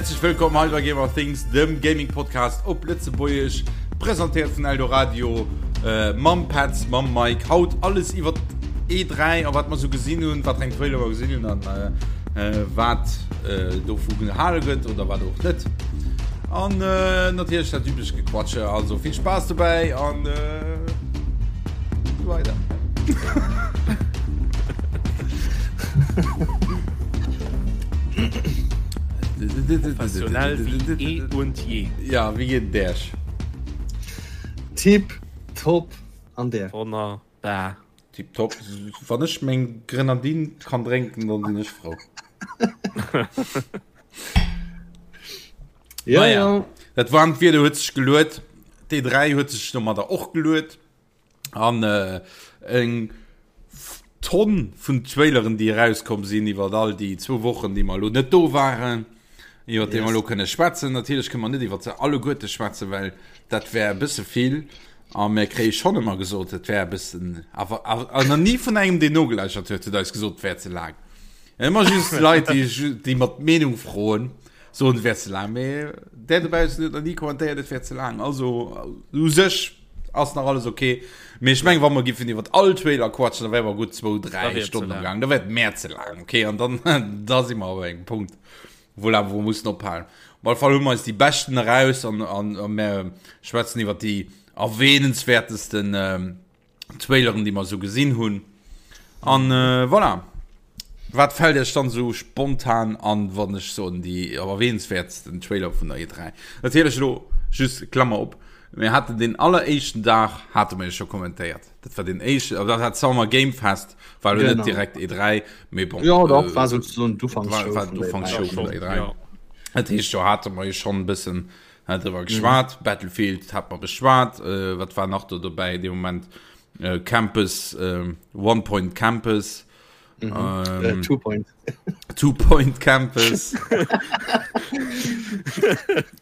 Häerzlech wëllkomm hei bei Gamer Things, dem Gaming Podcast op Lëtzebuergesch, presentéiert vun Eldoradio, äh, mam Petz, mam Mike. Haut alles iwwer E3 a wat mer sou gesinn hunn, wat eng Trailer mer gesinn hunn an äh, äh, wat äh, dovu gehale gëtt oder wat och net. An äh, natierlech dat üblecht Gequatsche. Also vill Spaass dobäi an äh, weider. Professionell wie eh und je. Ja, wie geet et Äech? Tip top an där? Wonnerbar. Tip top. Wann ech meng Grenadine kann drénken, dann sinn ech frou. Ja, Naja. ja. Dat waarmt Wieder huet sech geluet. D3 huet sech domadder och geluet. An äh, eng Tonn vun Traileren, déi erauskomm sinn iwwer all déi zwou Wochen, déi mer elo net do waren, iwwer déi mer elo kënne schwätzen. Natierlech kënne mer net iwwer se alleguerte schwätzen, well dat wär e bësse vill. A mir kréie schonn ëmmer gesot, et wär e bëssen, awer awer nach ni vun engem, deen nogelauschert huet, huet eis gesot, et wär ze laang. Ëmmer just Leit, déi, déi mat d'Meenung froen, soen, et wär ze laang. Mee där dobaussen huet nach ni kommentéiert, et wär ze laang. Also u sech ass nach alles ok. Mee ech meng, wa mer giffen iwwer all Trailer quatschen, da wäre mer gutt zwou, dräi Stonnen am Gaang. Da wär et mer ze laang, ok? An dann, da si mer op engem Punkt, wou awer wou mussen ophalen. Op alle Fall hu mer eis déi beschten eraus an, an, a mer schwätzen iwwer déi erwähnenswertesten Traileren, déi mer esou gesinn hunn. An äh, voilà. Wat fällt Iech dann esou spontan an, wann ech soen déi erwähnenswertsten Trailer vun der E3? Natierlech elo just Klammer op, mir haten den alleréischten Dag hate mer jo scho kommentéiert. Dat war den éischten, dat war d'Summer Game Fest, war elo net direkt E3, mee bon. Jo, dach, war souzesoen d'Ufanksshow war vun der E3. War d'Ufanksshow vun der E3. Ja. Dat heescht, do hate mer jo schonn e bëssen Hat driwwer geschwat, mhm. Battlefield hat mer beschwat, äh, wat war nach do dobäi de Moment äh, Campus äh, One Point Campus mhm. ähm, äh, Two Point Two Point Campus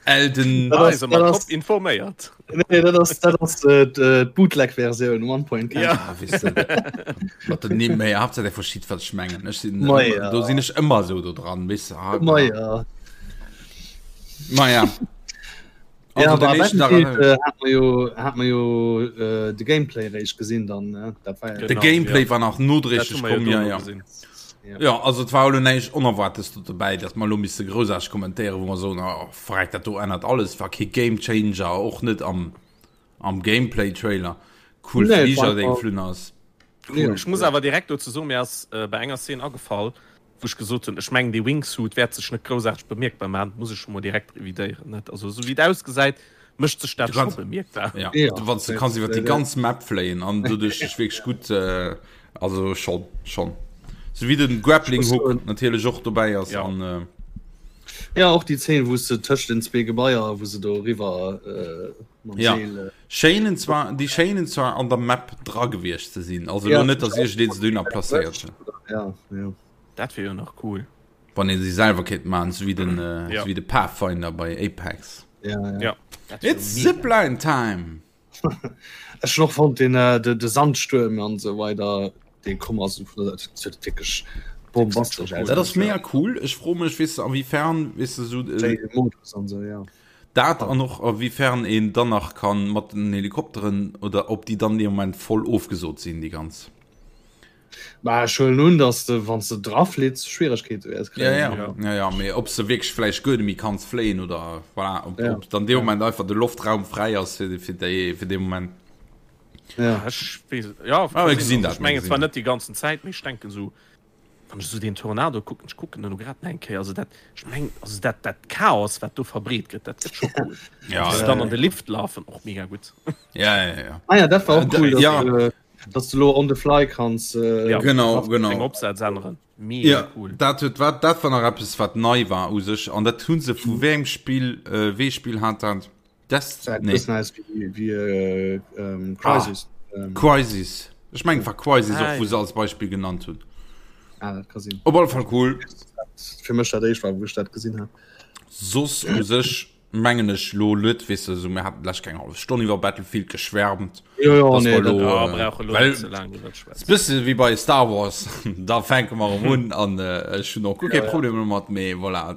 Elden ah, das, das, informéiert nee, dat ass, dat ass äh, äh Bootleg-Versioun One Point Campus. Ja. Ah, weißt du, den méi Hauptsache der verschied wat ich mengen ich sinn, ja. do sinn ech ëmmer so do dran wis ah, ja. Maja. Also, ja, Battlefield, äh, hat man jo, hat man jo äh, de Gameplay réischt gesinn dann ne? Dat war ja de Gameplay ja. war nach nodréiglech komm ja, ja. Ja. ja also et war elo näischt Onerwartes do dobäi, datt mer elo misse groussaarteg kommentéieren, wou mer soen, oh, verreck, dat do ännert alles, war kee Gamechanger, och net am, am Gameplay-Trailer. Cool Nee, Fliger, war dee einfach- geflunn ass. Ja. Ech muss awer direkt dozou soen, mir ass äh, bei enger Szene agefall, wou ech gesot hunn, ech mengen dee Wingsuit wäert sech net groussaarteg bemierkbar maachen, dat muss ech scho mol direkt revidéieren, net? Also esou wéi et ausgesäit, mécht sech dat Du kannst- scho bemierkbar. Ja, Ja. du, wann du kanns iwwer déi ganz Map fléien an doduerch dech wierklech gutt äh, also schon schon so wéi den Grappling Ech muss Hook soen- natierlech och dobäi ass Ja. an äh, Ja, och déi Zeen, wou se tëscht den zwee Gebaier, wou se do eriwwer äh, mam Ja. Seel. Äh, Schéinen zwar déi schéinen zwar an der Map dra gewiescht ze sinn also Ja. lo net dass iergendeen se dunner placéiert huet ja, ja. Dat wier jo nach cool. wann een se selwer kéint maachen sou wéi den äh, Ja. sou wéi de Pathfinder bei Apex Ja, ja. Ja. Dat wier It's mega. Zipline time Ech hun och fonnt den äh, de, de Sandstuerm an sou weider dee komm ass vun der dat huet wierklech bombastesch aus. Dat ass mega cool ech froe mech weess de awéifern weess de sou äh, Wéi Modus an sou ja. Dat an och a wéi fern een dann nach kann mat den Helikopteren oder ob déi dann dee Moment voll ofgesot sinn déi ganz. Bah ech huelen un dass de wann s de dra flitts Schwieregkeete wäers Ja, kréien. ja, ja, ja, mee ob s de wierklech vläicht guer net méi kanns fléien oder voilà, ob, Ja. ob dann dee Moment einfach de Loftraum fräi ass fir, fir déi, fir dee Moment. Ja. Ech weess, ja, Ah, mir gesinn dat, ech mir mengen gesinn zwar dat. net déi ganzen Zäit, mee ech denken esou Wann ech esou deen Tornado kucken, ech kucken en elo grad nach eng Kéier, also dat, ech mengen, also dat, dat Chaos, wat do verbreet gëtt, dat gëtt scho cool. Ja, Wéi se ja, dann an de Lift lafen, och mega gutt. ja, ja, ja. Ah ja, dat war och Äh, cool, dass, ja. du, dass du lo on the fly kanns. Äh, Ja. Genau, Deng genau. Opsätz änneren, mega Ja, cool. dat huet, wat, dat war nach eppes, wat nei war u sech. An dat hu se vu wéi engem Spill, äh, wéi Spill hat dat? Das nee. nee. Aus wie, wie äh, ähm, Crisis. Ah, ähm. Crisis. Ich mein, war Crisis ah, auch, wo ja. sie als Beispiel genannt hun. Ah, dat kann sinn. Op alle Fall cool. Fir mech dat éischt war, wou ech dat gesinn hat. Soss u sech mengen ech lo net, weess de, so mir haten lech keng half Stonn iwwer Battlefield geschwärmt. Jo, jo, nee, lo, dat, ja, äh, brauche lo well, net ze laang iwwer schwätzen. Bësse wéi bei Star Wars, da fänke mer erëm un an äh, ech hunn och guer kee Ja, ja. Problem domat, mee voilà.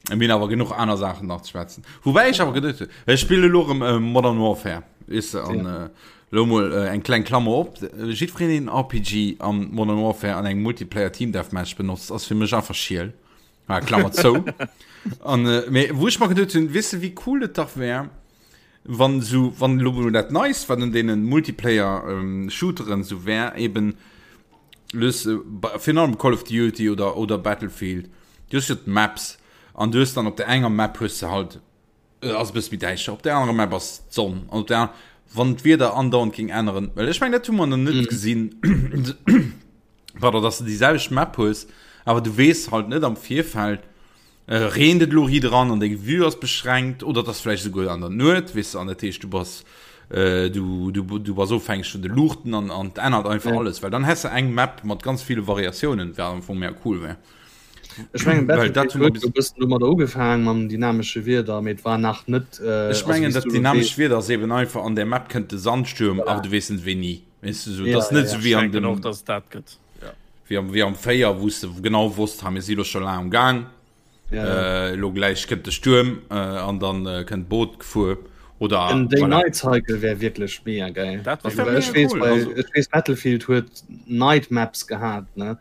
Mir hunn awer genuch aner Saachen nach ze schwätzen. Woubäi ech awer geduecht hunn, ech spille elo erëm äh, Modern Warfare, weess de, an ja. äh, lo mol äh, eng kleng Klammer op. Jiddwereen deen RPG am Modern Warfare an engem Multiplayer Team Deathmatch benotzt, ass fir mech einfach schiel. Ah, Klammer zou. An äh, mee wou ech mer geduecht hunn, weess de, wéi cool et dach wär, wann sou, wann elo mol dat Neist, wat un deenen Multiplayer ähm, Shooteren sou wär, eben Lues, virun allem Call of Duty oder, oder Battlefield, du hues jo d'Maps an du hues dann op der enger Map hues de halt, ass e bësse méi däischter, op der anerer Map ass d'Sonn an op der aner, wann d'Wieder andauernd géing änneren, well ech mengen dat hu mer nach net gesinn, pardon, dass de déi selwecht Map hues, awer du weess halt net am Virfeld, Reent et elo hir dran an deng Vue ass beschränkt oder et ass vläicht esouguer an der Nuet, weess de, an dat heescht du bass du du du bass ofhängeg vun de Luuchten an an et ännert einfach ja. alles, well dann häss de eng Map mat ganz ville Variatiounen, wat am Fong mega cool wär. Ech mengen dat huet e bëssen domadder ugefaangen mam dynamesche Wieder, mee et war nach net. Äh, Ech mengen dat dynamescht Wieder ass eben einfach an der Map kënnt de Sandstuerm, awer du weess net wéini. Weess du, sou, ja, dat ass net ja, sou wéi an dem. Och, dass et dat gëtt. Wéi am, wéi am 4, wou s de genau wosst, ha mir si lo scho laang am Gaang. Ja, ja. Äh, lo gläich kënnt de Stuerm äh, an dann äh, kënnt d'Boot gefuer. Oder En voilà. Day-Night-Cycle wär wierklech mega geil. Dat Also, wär well mega ech weess cool, bei, also. ech weess Battlefield huet Night Maps gehat, ne?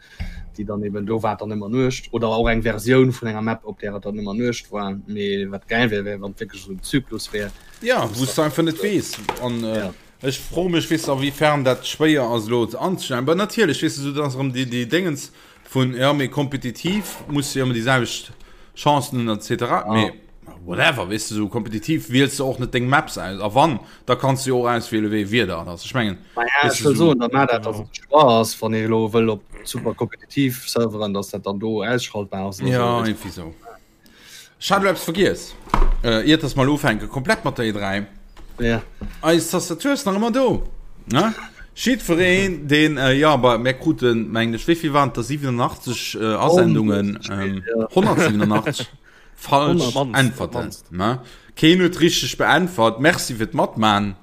Déi dann eben do war et dann ëmmer Nuecht oder och eng Versioun vun enger Map, op där et dann ëmmer Nuecht war. Mee wat geil wär, wär wann et wierklech esou en Zyklus wär. Ja, wou s de einfach net weess. An äh, Ja. Ech froe mech, weess de, a wéi fern dat schwéier ass elo ze anzestellen. Bah natierlech, weess de, esou, dat ass erëm déi, déi Déngens vun, jo, mee kompetitiv muss de jo ëmmer déi selwecht Chancen hunn et cetera. Mee whatever, weess de, esou kompetitiv wiels de och net deng Maps aus. A wann, da kanns de jo och auswiele wéi ee Wieder et ass. Ech mengen, Naja, weess ech de, wëll esou. soen, da maach dat, datt et e Choix ass, wann ee elo wëll op super kompetitiv Serveren, datt dat dann do ausschaltbar ass oder Jo, esou, weess de. iergendwéi esou. Ech hat elo eppes vergiess, äh, iert dass mer elo ufänke komplett mat der E3. Ja. Eis Tastatur ass nach ëmmer do. Ne? Jiddwereen, deen, äh, ja, aber mir kruten, mengen ech, wéi vill waren et der? 87 äh, Asendungen, ähm, 187 falsch Äntwerten. Ne? Keen huet richteg beäntwert. Merci fir d'Matman.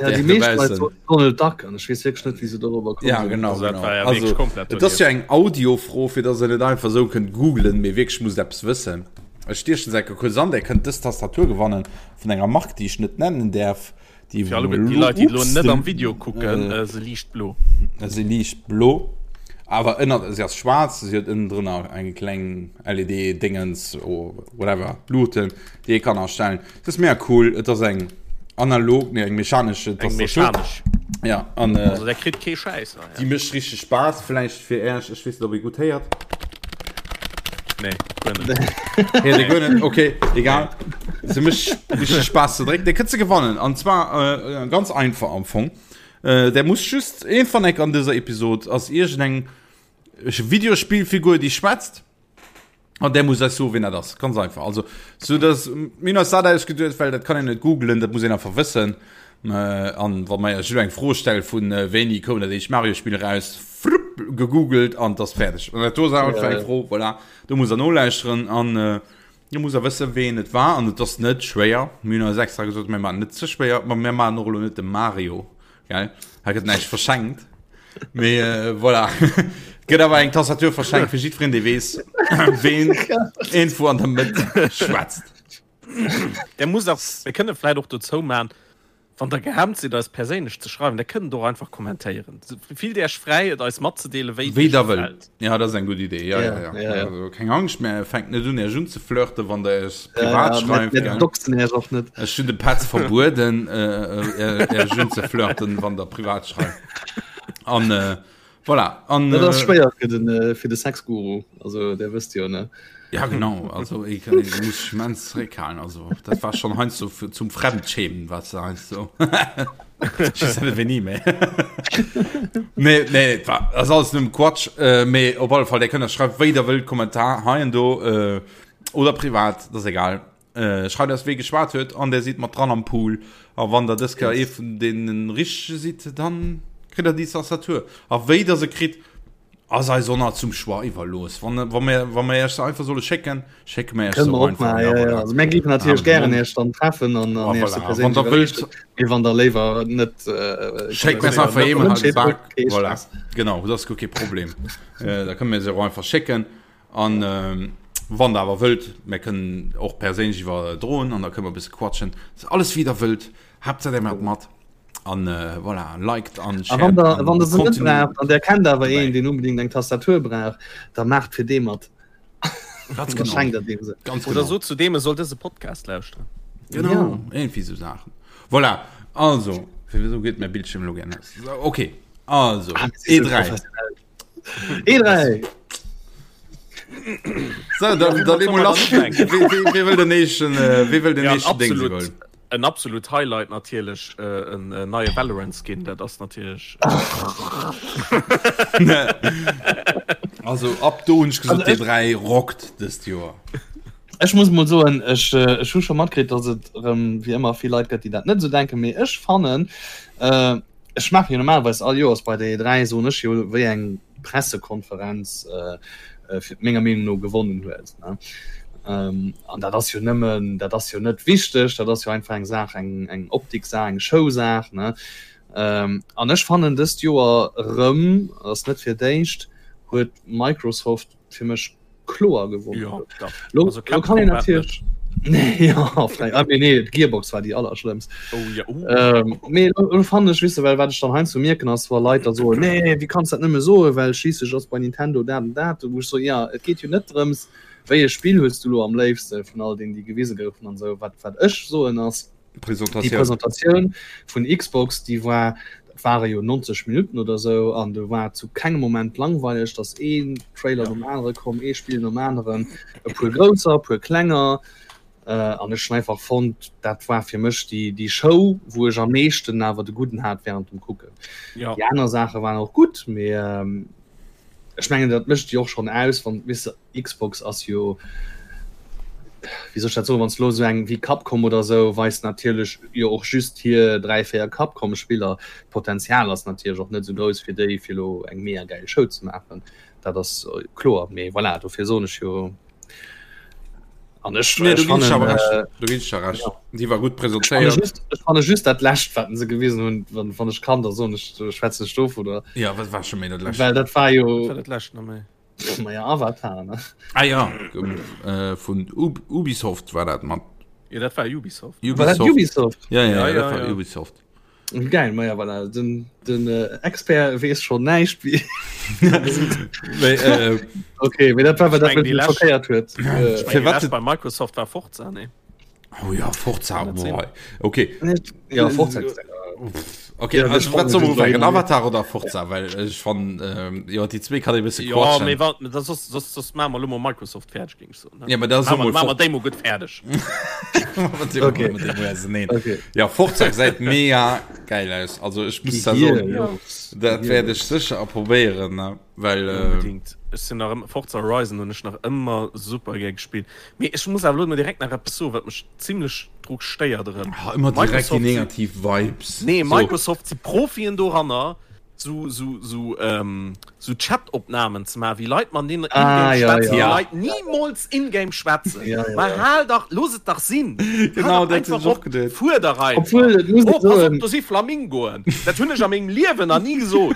Ja, déi meescht Leit soten Donald Duck an ech weess wierklech net, wéi se dorobber komm Ja, sinn. genau, Also dat genau. war ja Also, wierklech komplett et ass donieft. jo eng Audiofro, fir dass der net einfach esou kënnt googlen, mee wierklech musst eppes wëssen. Ech stiechen se enke kuerz an, der kënnt dës Tastatur gewannen vun enger Mark, déi ech net nennen däerf, déi Fir alleguerten déi Leit, déi elo net am Video kucken, se liicht blo. Se liicht blo, awer ënnert, se ass schwaarz, se huet ënnendrënner eng kleng LED-Dingens, whatever, Luuten, déi ee kann astellen. Et ass mega cool, et ass eng analog, nee eng mechanesch Eng Tastatur. mechanesch. Ja, an äh, Also der kritt kee Schäiss. Ah, ja. déi mécht richteg Spaass, vläicht fir Äech, ech weess net ob ee gutt héiert. Nee, guer net. Héiert ee guer net, okay, egal. Se mécht richteg Spaass ze drécken. Dir kënnt se gewannen an zwar äh, ganz einfach am Fong. Äh, der muss just een van eck an dëser Episod ass iergendeng Videospillfigur déi schwätzt. An der muss eis soen, wien dat ass. Ganz einfach. Also, so dass, mir hunn eis dat ausgeduecht, well dat kann een net googlen, dat muss een einfach wëssen. Äh, an wa mer iech elo eng Fro stelle vun äh, wéini koum dat éischt Mario-Spill eraus, flupp, gegoogelt an 't ass fäerdeg. An dat do ass einfach eng Fro, voilà, do musst der nolauschteren an äh, do musst der wëssen, ween et war. An et ass net schwéier. Mir hunn eis extra gesot, mir maachen net ze schwéier, ma mir maachen och elo net de Mario. Gell? Hei gëtt näischt verschenkt. Mee äh, voilà. Gëtt awer eng Tastatur verschenkt fir jiddwereen, dee weess, ween irgendwo an der Mëtt schwätzt. Der muss auch, mir kënne vläit och dozou man, wann der gehemmt sidd eis perséinlech ze schreiwen, der kënnt och einfach kommentéieren. Fillt Iech fräi et eis matzedeelen, wéi et Wéi iech der wëllt. gefält. Ja, dat ass eng gutt Idee. Ja, ja, ja. Ja, ja. Also, keng Angscht, mir fänkt net un Iech unzeflirten, wann der Iech privat Ja, schreift. mir Gell? doxen Iech och net. Ech hunn de Petz verbueden, äh, äh, Iech unzeflirten, wann der privat schreift. An äh, voilà. An, Dat ass äh, schwéier fir den, äh, fir de Sexguru. Also, der wësst jo, ne? Ja genau, also ich, ich muss mich immens zréckhalen. Also dat war schon heiansdo so zum Fremdschämen, was du heiansdo so. Ich weiß nicht, wéini méi. Nee, nee, dat war, das ist alles nëmmen Quatsch. Äh, mee op alle Fall, der kënnt schreift wéi der wëllt Kommentar hei an do äh, oder privat, das ist egal. Äh, schreift eis wee geschwat huet an der sidd mat dran am Pool. A wann der dës Kéier ee vun deenen richtege sidd, dann kritt der déi Tastatur. A wéi der se kritt, ass eis och nach zum Choix iwwerlooss. Wann, wa mir, wa mir iech se einfach solle schécken, schécke mir iech se Kënne mer och och einfach. maachen, Ja, ja, ja. voilà. Also mir géifen natierlech Ah, gären Mond. iech dann treffen an, Ah, an iech se voilà. Wann perséinlech der wëllt, iwwerreechen. Mee wann der léiwer net äh, schéckt mir se kommentéiert, einfach net eemol wënscht, halt de Bak. kee Voilà. Stress. Genau, dat ass guer kee Problem. Äh, da kënne mir se och einfach schécken. An ähm, voilà. Wann der awer wëllt, mär kënnen och perséinlech iwwerdroen an da kënne mer e bësse quatschen. Alles wéi der wëllt, Haaptsaach der maacht mat an voilà, liked an shared. A wann der, wann der se net braucht an der kennt awer een, deen unbedingt eng Tastatur brauch, da maacht fir dee mat. Ganz genau. Schenkt der deem se. Ganz Oder genau. sot zu deem, e soll dëse Podcast lauschteren. Genau, ja. irgendwie sou Saachen. Voilà, also, wieso geet mäi Bildschirm elo gär aus? Okay, also, ah, E3. E3! So, dann, dann legen wir lass. Wie will den nächsten, äh, wie will den ja, nächsten Ding absolut, en absolut Highlight natierlech äh, en äh, neie Valorant Skin, dat ass natierlech. Äh, also ab do hunn ech gesot, Also, D3 rockt dëst Joer. Ech muss mol soen, ech, äh, ech hu scho matkritt, dass et erëm wéi ëmmer vill Leit gëtt, déi dat net esou denken, mee ech fannen, äh, Ech maache jo normalerweis all Joers bei der E3 soen ech jo wéi eng Pressekonferenz fir menger Meenung no gewonnen huet. An dat ass jo nëmmen, dat ass jo net wichteg, dat ass jo einfach eng Saach, eng eng Optiksaach, eng Showsaach. An ech fannen dëst Joer erëm, ass net fir d'éischt, huet Microsoft fir mech kloer gewonnen. Ja, da. Lo, also lo kann een natierlech nee, ja, ah, nee, nee, Gearbox war déi allerschlëmmst. Oh, ja, oh. Ähm, nee, lo, fand ech wisse well wat ech dann heiansdo mierken ass wa Leit da soen nee wéi kanns dat nëmme soen well schliisslech ass bei Nintendo dat an dat wou ech so ja et geet jo net drëms wéi e Spill hues du lo am léifste vun all deenen déi gewise goufen an esou wat wat ech soen ass Presentatioun. Déi Presentatioun vun Xbox, déi war, dat ware jo 90 Minutten oder esou, an do war zu kengem Moment langweileg, dass een Trailer nom anere komm, ee Spill nom aneren, e puer grousser, e puer klenger. An ech hunn einfach fonnt, dat war fir mech déi, déi Show, wou ech am meeschten awer de Gudden hat während dem Kucken. Ja. Déi aner Saache waren och gutt, mee ech mengen, dat mécht jo och schonn aus, wann, weess de, Xbox ass jo, wéi soll ech dat soen, wann s de elo esou eng wéi Capcom oder esou weist natierlech jo och just hir 3, 4 Capcom-Spiller. D'Potenzial ass natierlech och net esou grouss fir déi fir elo eng mega gäil Show ze maachen, dat ass kloer. Mee voilà, dofir soen ech jo an ech Nee, do ginn ech awer fannen, recht. Do ginn ech der recht. ja. Déi war gutt Ech fanne presentéiert. just, ech fanne just dat lescht wat se gewisen hunn, wann, wann ech kann, da soen ech, schwätzen ech dovunner. Ja, wat war scho méi dat lescht? Well dat war jo. Wat war dat lescht nach méi? Maja Avatar ne? Ah ja äh, vun Ub Ubisoft war dat mat. Ja, dat war Ubisoft. Ubisoft. War dat Ubisoft? Ja, ja, Ja, ja, dat ja, war ja. Ubisoft. Geil, maja voilà. Den, den äh, Expert weess schon näischt wie. Mee, äh, Okay, mee dat war, wat Ich dat mein, die mech lescht- schockéiert huet. Äh, Ich mein, Fir die wat lescht bei Microsoft war Forza, ne? Oh ja, Forza, Kann dat sinn? boah. Okay. Ja, Forza. Okay, Ja, also, das wat soll man spannend ufangen? Avatar oder Forza? Well ech fan ähm, ja, déi zwee kann ee bësse Ja, quatschen. mee wat, dat soss, soss, soss maache mer elo mol Microsoft fäerdeg, géing ech soen. ne? Ja, mä da soll Maache mer, mol maache mer Fort- déi mol gutt fäerdeg. Okay. Okay. Okay. Ja, Forza gesäit mega geil aus. Also ech muss da Hier, soen, ja. dat wäert ech sécher a probéieren, ne? Well äh, Unbedingt. Ech sinn nach ëmmer, Forza Horizon hunn ech nach ëmmer super gär gespillt. Mee ech muss awer elo mol direkt nach eppes soen, wat mech zimlech dru stéiert erëm. ah, ëmmer direkt déi Microsoft si- negativ Vibes. Nee, So. Microsoft si Profien doranner, sou, sou, sou, ähm, sou Chat-Opnamen ze maachen, wéi Leit mat deenen Ah, in-game ja, schwätzen, ja. wéi Leit nimools in-game schwätzen. Ja, ja, Ma ja. hal dach, looss et dach sinn! Genau, Hal dach dat hunn einfach ech och op, geduet. fuer dach einfach! Obwuel, et muss Oh, ee pass op, soen, do si Flamingoen! Dat hunn ech a mengem Liewen nach ni gesot!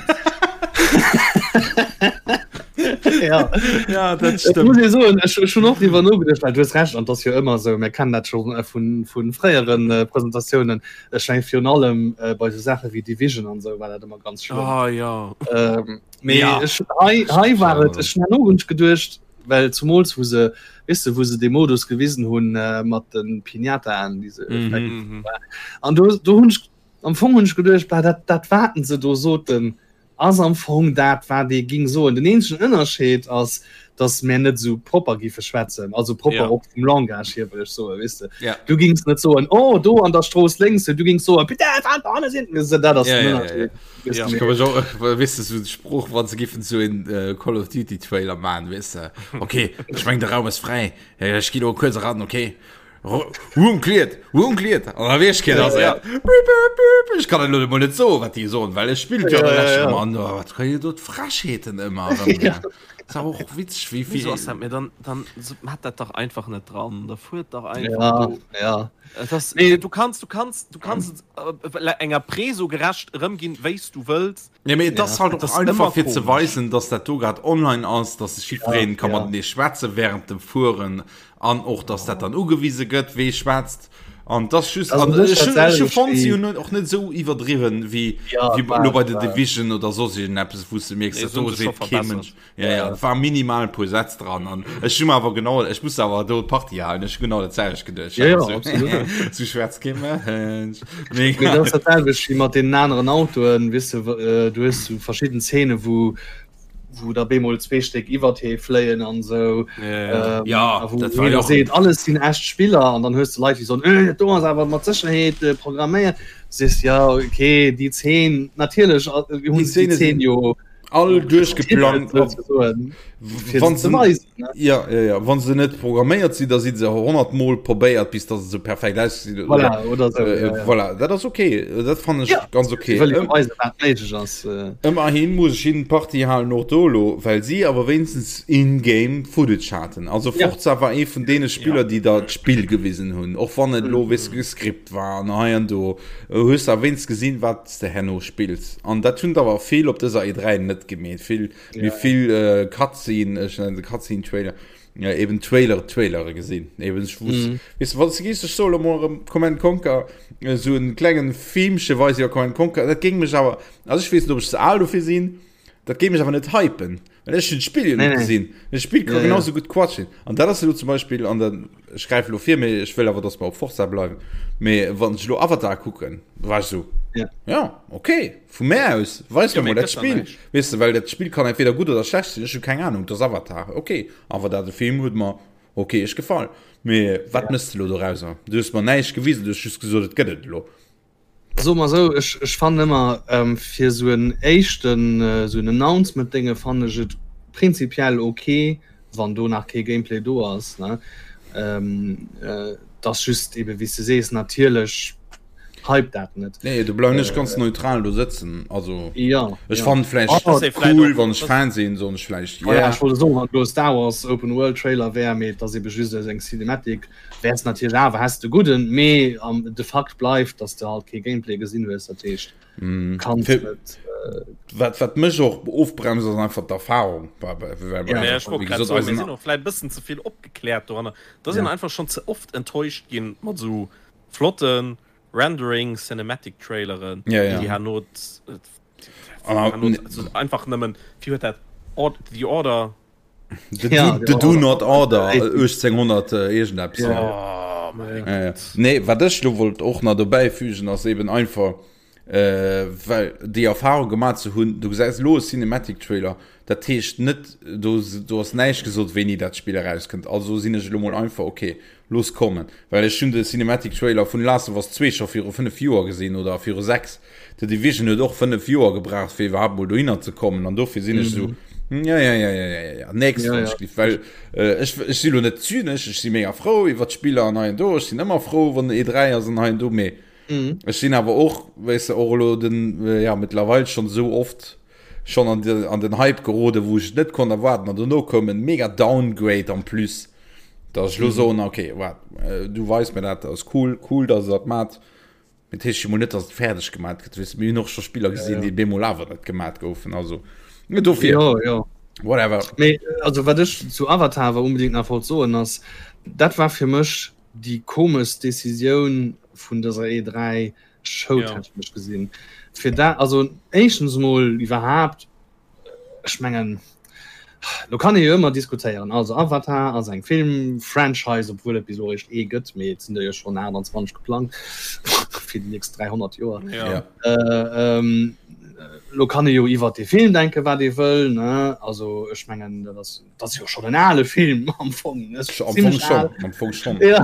ja. Ja, dat Et stëmmt. muss ee soen, ech ech hunn och driwwer nogeduecht, well du hues Recht, an 't ass jo ëmmer esou, mir kennen dat scho vun vu fréieren Presentatiounen, ech mengen virun allem bei esou Saache wéi Division an esou war dat ëmmer ganz schlëmm. Ah, ja. Ähm, mee Ja. ech hei hei war et, ech hunn herno hunn ech geduecht, well zumools wou se, weess de, wou se dee Modus gewisen hunn mat de Piñataen, déi se Mhm. Mhm. an do do hunn ech am Fong hunn ech geduecht, bah dat dat waten se do soten, ass am Fong dat wat ee ging soen. Den eenzegen Ënnerscheed ass, datt mär net esou propper giffe schwätzen, also propper Ja. och vum Langage hier wëll ech soen, weess de. Ja. Du gings net soen, oh do an der Strooss lénks, du gings soen, putain, wat hanne sinn. Dat ass Ja, den ja, ja, Ënnerscheed. Weess Ja. de, Ich kann mich auch, weißt du, so den Spruch, wann se giffen so en äh, Call of Duty Trailer machen, weißt du, okay, ich mein, der Raum ist frei, Äh, ich geh nur kurz ran, okay. Room cleared, room cleared. An da weess keen, ass et. Bip, bip, bip. Ech kann et elo emol net soen, wat déi soen, well ech spillt jo Ja, dann ja, lech ja. ëmmer an. Oh, wat kréie do d'Frechheeten ëmmer erëm. Ja. Ass awer och witzeg, wéi Wieso vill. ass dat mir dann dann so, hat dat dach einfach net dran da fuert dach einfach Ja, do ja. Et ass, Nee. du kannst du kannst du kannst es äh, enger Preso gerecht erëmginn wéis du wëlls Ja, mee et ass Ja. halt Et och ass einfach ëmmer fir ze komesch. weisen, dass dat do grad online ass, dass sech jiddwereen ka Ja, ja. matenee schwätze während dem Fueren an och dass dat dann ugewise gëtt, wee schwätzt. An das just Also an net ech hun ech hu dat fonnt, si selwecht hunn net och net esou iwwerdriwwen wéi Ja, wéi war, lo bei The war. Division oder soss iergendeppes, wou s de mierks, Nee, dat se hunn do sech scho seet kee verbessert. Mënsch. Ja, ja, et war minimal e puer Sätz dran an ech hu mer awer genau, ech muss awer do d'Partie halen, ech hu genau dat selwecht geduecht. Ja, ja, absolut. Sou schwätzt kee Mënsch. Mee dat ass dat selwecht wéi mat deenen aneren Autoen, weess de, äh, du hues sou verschidden Zeene wou wou da bemol zwee Stéck iwwert hee fléien an sou Ja, ähm, Ja, a wou dat war jeder jo och- seet alles sinn echt Spiller an dann hues de Leit déi soen äh, dat do ass awer mat Sécherheet äh, programméiert. Sees ja okay déi Zeen natierlech äh, hunn Déi se déi Zeene Zeen sinn jo all duerchgeplangt wann se ja, ja, ja. wann se net programméiert sinn da si se 100 mol probéiert bis dat se perfekt aussinn voilà, oder so, äh, ja, ja. voilà. dat ass okay dat fand ech ja. ganz okay ass äh. ëmmerhin muss ech hinnen d'Partie halen och do lo well si awer wéinstens in-game Footage haten also Forza ja. war ee vun deene Spiller ja. déi der d'Spill gewisen hunn och wann et lo mm. wis geskript war an hei an do hues awer wéinst gesinn wat s de herno spills. An dat hunn der awer vill op dëser E3 net gemeet. Vill, ja. vill äh, Cutscene, ech nennen se Cutscene Trailer, ja, eben Trailer, Trailere gesinn. Eben ech wusst, mm. weißt du, wann du gehst, ech soll emol erëm Command Conquer, äh, so en klengen Filmche weis iwwer Command Conquer, dat géing mech awer, also ech weess net, ob ech ze al dofir sinn, Dat géif mech awer net hypen, well ech hunn d'Spill jo net gesinn. Dat Spill ka genau sou gutt Quatsch sinn. An dat ass elo zum Beispill an der, ech gräife elo vir, mee ech wëll awer, datt mer op Forza bleiwen, mee wann ech elo Avatar kucken, war ech sou, ja, okay, vu mär aus, weis mer mol dat Spill, weess de, well dat Spill kann entweder gutt oder schlecht sinn, ech hu keng Anung, et ass Avatar, okay. Awer dat de Film huet mer okay-esch gefall. Mee wat méchs de elo dorauser? Du hues mer näischt gewisen, du hues just gesot, et gëtt et elo. Soe mer esou, ech, ech fannen ëmmer, fir esou en éischten, esou en Announcement-Dénge fannen ech et prinzipiell ok, wann do nach kee Gameplay do ass, ne. Et ass just ebe wéi s de sees, natierlech hypt dat net. Nee, do bleiwen ech ganz neutral do sëtzen. Also Ja, ech ja. fannen vläicht Oh, das cool, wann ech Fan sinn, soen ech vläicht Voilà, yeah. ech wollt soen, wann do e Star Wars Open World Trailer wär, mee et ass ebe just eng Cinematic, Wärs natierlech awer häss de gudden, mee de Fakt bleift, dass de halt kee Gameplay gesinn hues, dat heescht kanns net. Wat wat mech och ofbremst ass einfach d'Erfahrung. Sinn och vläit bëssen ze vill opgekläert doranner, da sinn einfach schonn ze oft enttäuscht ginn mat esou flotten Rendering Cinematic Traileren, déi herno einfach nëmmen, wéi huet dat The Order The, ja, do, the do not order 1800 äh, irgendeppes. Ja. Oh, ja, ja. Nee, wat ech lo wollt och nach dobäi fügen ass eben einfach äh, well déi Erfahrung gemaach ze hunn, du gesäis lo e Cinematic Trailer, dat heescht net do, do ass näischt gesot wéini dat Spill erauskënnt. Also sinn ech lo mol einfach okay, looss kommen. Well ech hunn de Cinematic Trailer vun Last of Us 2 scho viru 5 Joer gesinn oder viru 6. The Division huet och 5 Joer gebraucht fir iwwerhaapt mol dohinner ze kommen an dofir sinn ech esou ja ja ja ja ja ja nächst Ja, ja. ja. well äh, ech, ech si lo net zynesch, ech si mega frou iwwer d'Spiller an hei an do, ech sinn ëmmer frou wann E3 ass an hei an do, mee Mhm. ech sinn awer och weess de och elo den äh, ja mittlerweil schon esou oft schon an, de, an den Hype gerode wou ech et net konnt erwaarden an dono koum en mega Downgrade en plus, dass ech lo soen okay waart äh, du weis mir dat, dat ass cool, cool dass der dat mat. Dat heescht jo mol net, dass et fäerdeg gemat gëtt. Weess, mir hunn och scho Spiller gesinn, déi bemol awer net gemat goufen. Also dofir. Jo, jo. Whatever. Mee also wat ech zu Avatar awer unbedingt nach wollt soen ass, dat war fir mech déi komeschst Decisioun vun dëser E3 Show technesch gesinn. Fir dat, also éischtens mol iwwerhaapt, Ech mengen, lo kann ee jo ëmmer diskutéieren. Also Avatar ass eng Film-Franchise, obwuel et bis elo eréischt ee gëtt, mee et sinn der jo schonn 28 geplangt fir déi nächst 300 Joer. Ja. Äh, ähm, lo kann ee jo iwwer dee Film denke wat ee wëll, ne? Also ech mengen, dat ass, dat ass jo schonn en ale Film am Fong, ne? Am Fong Zimmlech schon, al. am Fong schon. Ja.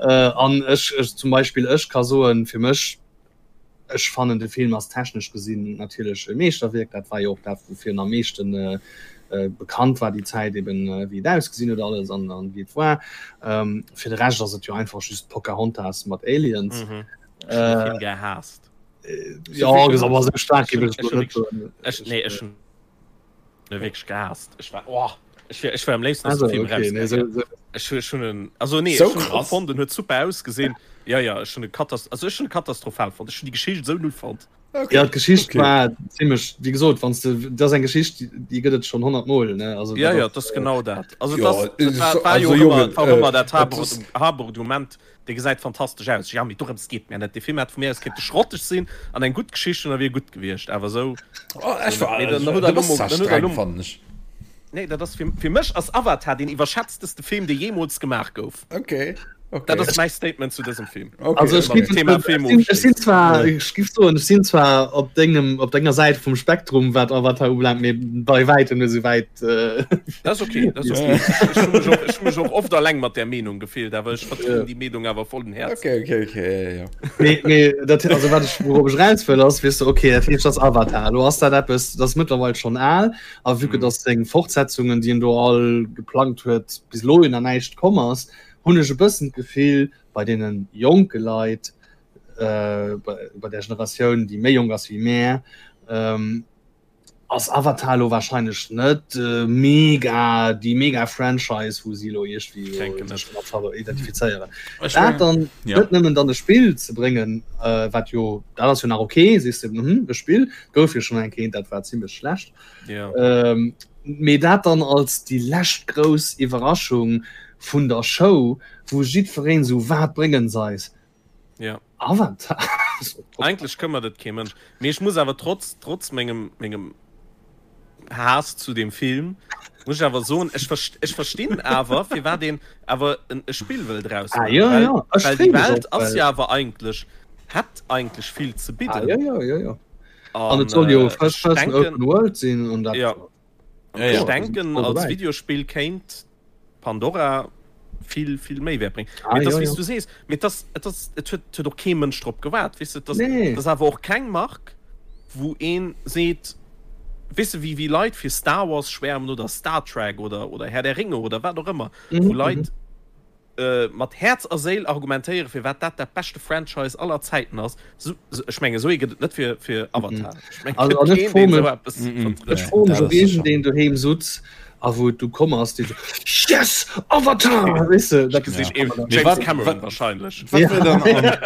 Äh, an ech, ech zum Beispill, ech ka soen, fir mech, Ech fannen de Film ass technesch gesinn natierlech e Meeschterwierk, dat war jo och dat woufir en am meeschten. bekannt war déi Zäit eben wéi et ausgesinn huet alles an an wéi et war. Fir de Rescht ass et jo einfach just Pocahontas mat Aliens. Mhm. Ech hunn de Film gehaasst. Jo, awer esou staark géif ech et elo net soen. Ech, nee, ech hunn e wierklech gehaasst. Ech war, oh, ech wär, ech wär am léifsten aus dem Film okay, nee, rausgaangen. so, so. Ech hu, ech hunn en, also nee, So ech hunn en krass. fonnt, en huet super ausgesinn. Ja, ja, ech hunn e katas-, also ech hunn e katastrophal fonnt. Ech hunn déi Geschicht esou null fonnt. Okay. Ja, d'Geschicht Okay. war ziemlech, wéi gesot, wann du, dat ass eng Geschicht, déi, déi gëtt et schonn 100 Mol, ne? Also, Ja, dat ja, ass, dat ass genau dat. Also Ja, dat ass, dat war, war also jo och Jongen, ëmmer, war och ëmmer äh, dat et Haber, ass- Haberargument, dee gesäit fantastesch aus. Ja, mee dorëms geet mir net. Dee Film hätt vu mir aus kéinte schrotteg sinn an eng gutt Geschicht hunn, da wier gutt gewiescht. Awer esou, Oh, ech esou net. war, Mee dann huet du er bass elo mol, zwar dann huet er streng, elo mol, fannen ech. Nee, dat ass fir, fir mech ass Avatar deen iwwerschätzteste Film, dee jeemools gemaach gouf. Okay, okay. Dat ass mäi Statement zu dësem Film. Okay, Also ech Mam gif, Thema ech Film sinn, ech sinn ofschléissen. zwar, ech gif soen, ech sinn zwar op dengem, op denger Säit vum Spektrum, wat Avatar ubelaangt, mee bei wäitem net esou wäit. Äh, Dat ass okay, dat ass okay. Ech hu mech och, ech hu mech och oft alleng mat där Meenung gefillt, awer ech vertrieden déi Meenung awer vollen Häerzens. Okay, okay, okay, ja, ja. Mee, mee dat, also wat ech, wourop ech raus wëll, ass, weess de, okay, dat heescht, dat ass Avatar. Elo ass dat eppes, dat ass mëttlerweil schonn al, a vue que dass seng Fortsetzungen, déi en do all geplangt huet, bis elo jo nach näischt komm ass, hunn ech e bëssen d'Gefill, bei deene jonke Leit, äh, bei, bei der Generatioun, déi méi jonk ass wéi mär, ähm, ass Avatar elo wahrscheinlech net mega déi mega Franchise wou si elo iergendwéi Denken sech net. mat identifizéieren. Ech Dat mengen, dann ja. net nëmmen dann e Spill ze bréngen, äh, wat jo dat ass jo nach okay, sees de hm, e Spill gouf jo schonn eng Kéint, dat war zimmlech schlecht. Ja. Ähm, mee dat dann als déi lescht grouss Iwwerraschung vun der Show, wou jiddwereen esou wat bréngen se eis? Ja. Avatar. Eigentlech këmmert et kee Mënsch. Mee ech muss awer trotz, trotz mengem, mengem Haass zu dem Film, muss ech awer soen, ech verst, ech verstinn awer, firwat een awer en, e Spill wëll draus Ah, maachen. ja, Well, ja. Ech well déi free mech Welt och, ass well jo awer eigentlech, hätt eigentlech vill ze Ah, bidden. ja, ja, ja, ja. An An et soll jo äh, First ech Person denken, Open World sinn an dat. ja, Ja, ech ja. Ja, denken, voll als dobäi. Videospill kéint Pandora vill vill méi wäert bréngen. Ah, Mee et ass ja, wéi s ja. du sees, mee et ass et ass et huet huet och kee Mënsch drop gewaart, weess de, et ass Nee. et ass awer och keng Mark, wou een seet, weess de, wéi wéi Leit fir Star Wars schwäermen oder Star Trek oder oder Herr der Ringe oder wat och ëmmer, Mhm, wou mhm. Leit mat Häerz a Séil argumentéieren, firwat dat dat beschte Franchise aller Zäiten ass. Sou, ech mengen, esou ee gëtt et net fir fir Avatar. Ech mengen, Also, et an gëtt ech keen, deen froe esou mech, eppes Mm, mm. vertrëtt. ech froe mech, Dat ob ass sécher. iergendeen doheem sutz a wou et du komm ass, dee sou, Yes! Avatar! Weess de, dat Ech gesinn kann ee man dann. Mee James wat, Cameron wat, wahrscheinlech. wat Ja. wär dann an,